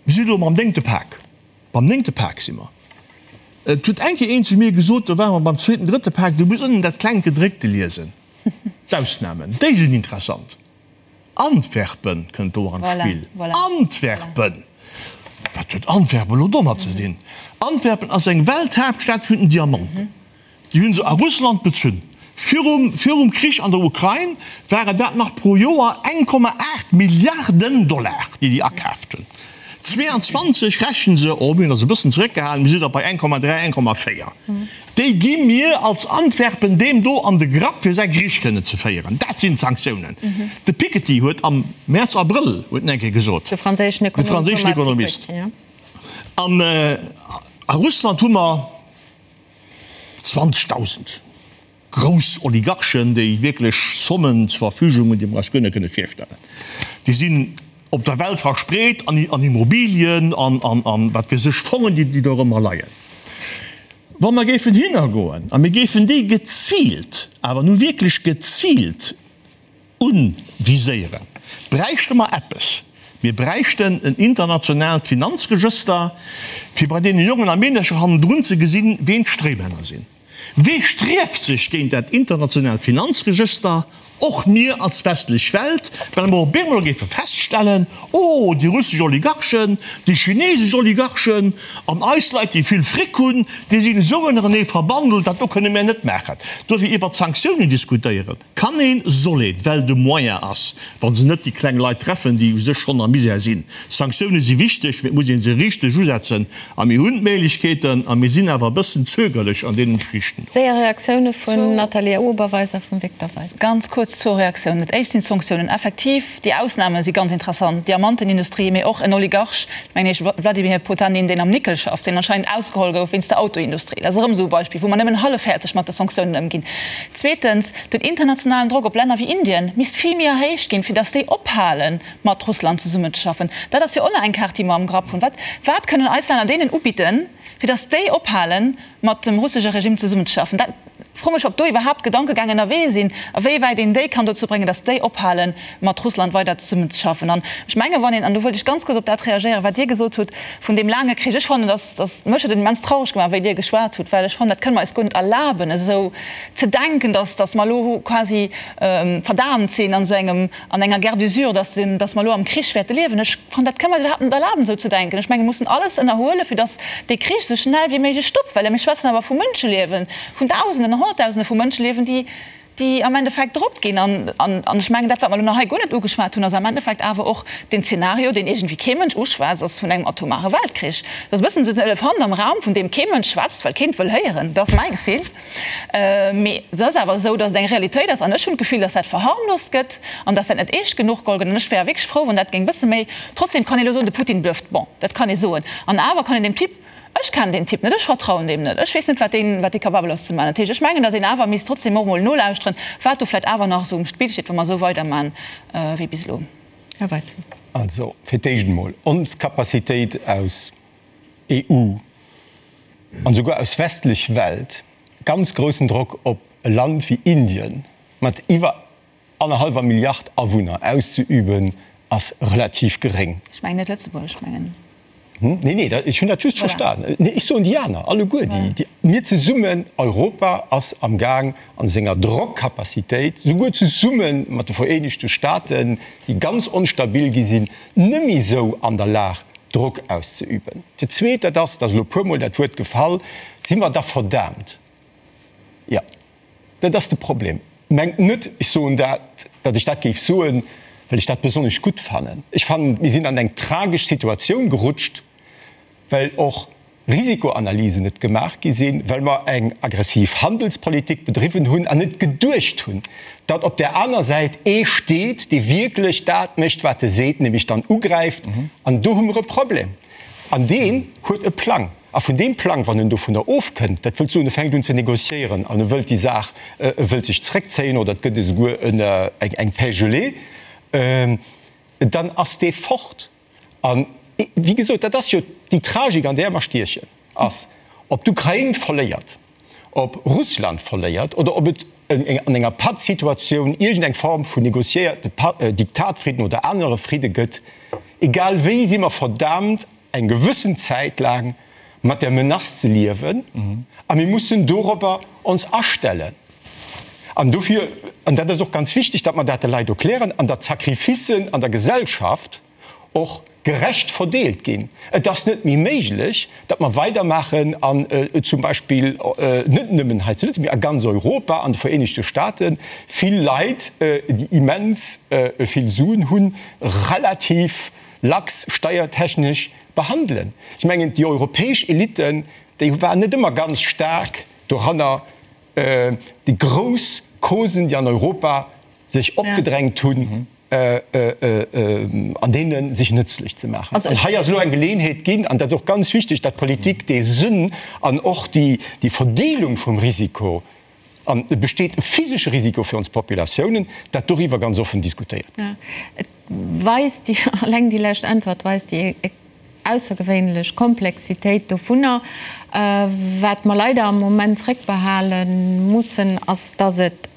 [SPEAKER 3] Mir si lo mam néngte Pak. Beim néngte Pak si mer. Et huet eng Kéier een zu mir gesot, do ware mer beim zweeten, drëtte Pak, du muss ënnen dat klengt Gedréckte liesen. D'Ausnamen, déi sinn interessant. Antwerpen kënnt do an d'Spill. Antwerpen! Wat huet Antwerpen elo domat ze dinn? Antwerpen ass eng Welthaaptstad vun den Diamanten. Déi hu se a Russland bezunn. Virum virum Krich an der Ukrain waren dat nach pro Joer 1,8 Milliarden Dollar, déi déi akaaft hunn. 22 rechne se, oh mir hunn eis e bëssen zeréckgehalen, mir si da bei 1,3, 1,4. Déi gi mir als Antwerpen deem do an de Grapp, fir säi Krich kënnen ze féieren. Dat sinn d'Sanktiounen. De Piketty huet am Mäerz, Abrëll huet en eng Kéier gesot,
[SPEAKER 2] De franséischen
[SPEAKER 3] Ekonomist, an a Russland hu mer, 20.000 grouss Oligarchen, déi wierklech Sommen zur Verfügung hunn, déi mer eis guer net kënne virstellen. Déi sinn op der Welt verspreet an Immobilien an an wat weess ech, Fongen, déi do erëmmer leien. Wa mer géifen hinnergoen a mir géifen déi geziilt, awer nu wierklech geziilt Unviséieren, bräichte mer eppes. Mir bräichten en internationaalt Finanzregëster, fir bei deene Jongen a Meedercher hannendrun ze gesinn, ween d'Stréimänner sinn. Wee strieft sech géint dat internationaalt Finanzregëster? Och mir als westlech Welt, well mer op eemol géife feststellen, Oh, déi russesch Oligarchen, déi chinesesch Oligarchen an eis Leit, déi vill Fric hunn, déi sinn esou ënnerenee verbandelt, dat do kënne mär net maachen. Dofir iwwert Sanktiounen diskutéieren. Kann een, soll een, well de Moyen ass, wa se net déi kleng Leit treffen, déi u sech schonn am Misär sinn. Sanktioune si wichteg, mee et muss ee se richteg usetzen. A mir hunn d'Méiglechkeeten a mir sinn awer e bëssen zögerlech an deenen Geschichten do.
[SPEAKER 2] Séier Reaktioune vun Nathalie Oberweis a vum Victor Weis.
[SPEAKER 6] Ganz kuerz zwou Reaktiounen. Dat éischt sinn d'Sanktiounen. Effektiv, déi Ausname si ganz interessant, Diamantenindustrie, mee och en Oligarch, mengen ech, Wladimir Potanin, deen am Nickel schafft, deen anscheinend ausgeholl gouf wéinst der Autoindustrie. Dat ass erëm esou e Beispill, wou mer nëmmen hallefhäerzeg mat de Sanktiounen ëmginn. Zweetens, den internationalen Drock op Länner wéi Indien misst vill méi erhéicht ginn, fir datt déi ophale mat Russland zesummenzeschaffen. Dat ass jo och nach eng Kaart, déi mer am Grapp hunn. Wat, wat kënnen eis Länner deenen ubidden, fir datt déi ophale mat dem russesche Regime zesummenzeschaffen? Dat froe mech, ob do iwwerhaapt Gedankegäng ënnerwee sinn, a wéi wäit een déi kann dozou bréngen, datt déi ophale mat Russland weider zesummenzeschaffen. An ech menge wann een, an do wëllt ech ganz kuerz op dat reagéieren, wat Dir gesot hutt vun deem laange Krich, ech fannen, datt, datt, mech huet et immens traureg gemaach, wéi Dir geschwat hutt, well ech fannen, dat kënne mer eis guer net erlaben, esou ze denken, dass, dass mer elo quasi verdaamt sinn an esou engem, an enger Guerre d'usure, dass den, dass mer elo am Krich wäerte liewen. Ech fannen, dat kënne mer eis iwwerhaapt net erlaben, esou ze denken. Ech mengen, mir mussen alles ënnerhuelen, fir dass dee Krich esou schnell wéi méiglech stoppt, well mir schwätzen awer vu Mënscheliewen, vun Dausenden an Honnertdausende vu Mënscheliewen, déi, déi am Endeffekt drop ginn. An, an, an ech mengen, dat, wat mer elo nach hei guer net ugeschwat hunn, ass am Endeffekt awer och deen Zeenario, deen iergendwéi kee Mënsch uschwätzt, ass vun engem atomare Weltkrich. Dat ass e bëssen esou den Elefant am Raum, vun deem kee Mënsch schwätzt, well keen et wëll héieren. Dat ass mäi Gefill. Mee et ass awer esou, datt et eng Realitéit ass. An ech hunn d'Gefill, datt dat verharmlost gëtt an datt dat net eescht genuch geholl gëtt. An ech wär wierklech frou, wann dat géing e bësse méi. Trotzdem kann ee elo soen, de Putin blufft. Bon, dat kann ee soen. An awer kann een deem Typ, ech kennen deen Typ net, ech vertrauen deem net, ech weess net, wat deen, wat dee capabel ass ze maachen. Dat heescht, ech mengen, datt een awer misst trotzdem och emol nolauschteren, wat do vläicht awer nach esou um Spill steet, wa mer esou weidermachen wéi bis elo.
[SPEAKER 2] Här Weizen.
[SPEAKER 5] Also, fir d'éischt emol, ons Capacitéit aus EU an esouguer aus westlech Welt ganz groussen Drock op e Land wéi Indien mat iwwer annerhallwer Milliard Awunner auszeüben, ass relativ geréng.
[SPEAKER 6] Ech mengen net Lëtzebuerg, ech mengen.
[SPEAKER 5] Nee, nee, ech hunn dat just verstan. Nee, ech soen déi aner alleguer, déi mir zesummen, Europa ass am Gaang an senger Drockcapacitéit, souguer zesumme mat de Vereenegte Staaten, déi ganz onstabil gi sinn, nëmme esou an der Lag, Drock auszeüben. Dat Zweet, dat ass, et ass elo e puermol dat Wuert gefall, Si mer da verdaamt? Jo, dat ass de Problem. Mengt net, ech soen dat, datt ech dat géif soen, well ech dat besonnesch gutt fannen. Ech fannen, mir sinn an eng tragesch Situatioun gerutscht, well och Risikoanalysen net gemaach gi sinn, well mer eng aggressiv Handelspolitik bedriwwen hunn an net geduecht hunn, datt op där aner Säit ee steet, dee wierklech dat mécht, wat e seet, nämlech dann ugräift. An do hu mer e Problem. An deen huet e Plang. A vun deem Plang, wann en dovunner ofkënnt, dat wëllt soen, e fänkt un ze négociéieren an e wëllt déi Saach, e wëllt sech zréckzéien oder et gëtt esouguer eng Paix gelée, dann ass dee fort. A wéi gesot, dat ass jo déi Tragik, an där mer stiechen, ass, ob d'Ukrain verléiert, ob Russland verléiert oder ob et an enger Pattsituatioun iergendeng Form vun négociéierte Diktatfridden oder anere Fridde gëtt, egal wéi si mer verdaamt, eng gewëssen Zäit laang mat der Menace ze liewen a mir mussen dorobber ons astellen. An dofir, an dat ass och ganz wichteg, datt mer dat de Leit erklären an datt d'Sacrificen an der Gesellschaft och gerecht verdeelt ginn. Et ass net méi méiglech, datt mer weidermaachen an zum Beispill net nëmmen hei zu Lëtzebuerg, mee a ganz Europa, an de Vereenegte Staten, vill Leit, déi immens vill Suen hunn, relativ lax steiertechnesch behandelen. Ech mengen, déi europäesch Eliten, déi waren net ëmmer ganz staark doranner, déi grouss Causen, déi an Europa sech opgedrängt hunn, an deene sech nëtzlech ze maachen. An hei ass elo eng Geleeënheet ginn, an dat ass och ganz wichteg, datt d'Politik dee Sënn an och déi Verdeelung vum Risiko, an et besteet e physesche Risiko fir ons Populatiounen, dat doriwwer ganz offen diskutéiert gëtt.
[SPEAKER 2] Et weist déi, alleng déi lescht Äntwert weist déi aussergewéinlech Komplexitéit dovunner. Wat mer leider am Moment zréckbehale mussen, ass, dass et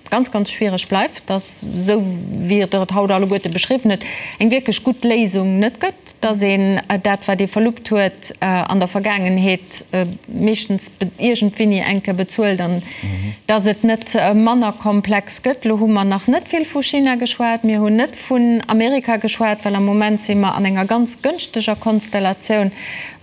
[SPEAKER 2] ganz, ganz schwiereg bleift, dass, esou wéi Der et haut alleguerte beschriwwen hutt, eng wierklech gutt Léisung net gëtt, dass een dat, wat ee verluppt huet an der Vergaangenheet, meeschtens iergendwéini eng Kéier bezuelt an dass et net manner komplex gëtt. Elo hu mer nach net vill vu China geschwat, mir hunn net vun Amerika geschwat, well am Moment si mer an enger ganz gënschteger Konstellatioun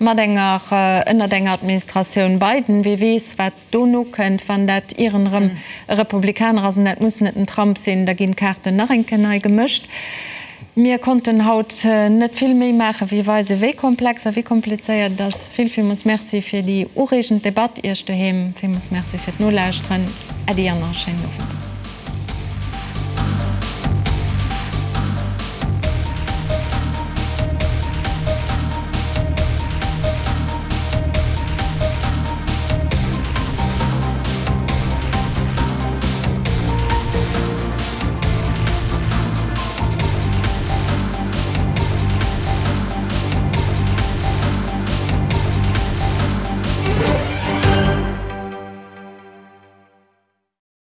[SPEAKER 2] mat enger, ënnert enger Administratioun Biden. Wie weess, wat dono kënnt, wann dat ieren erëm e Republikaner ass, an dat muss net den Trump sinn, da ginn d'Kaarten nach eng Kéier nei gemëscht. Mir konnten haut net vill méi maachen, wéi weisen, wéi komplex a wéi komplizéiert et ass. Vill, villmools Merci fir déi ureegend Debatt. Iech doheem villmools Merci fir d'Nolauschteren. Äddi an nach e schéinen Owend.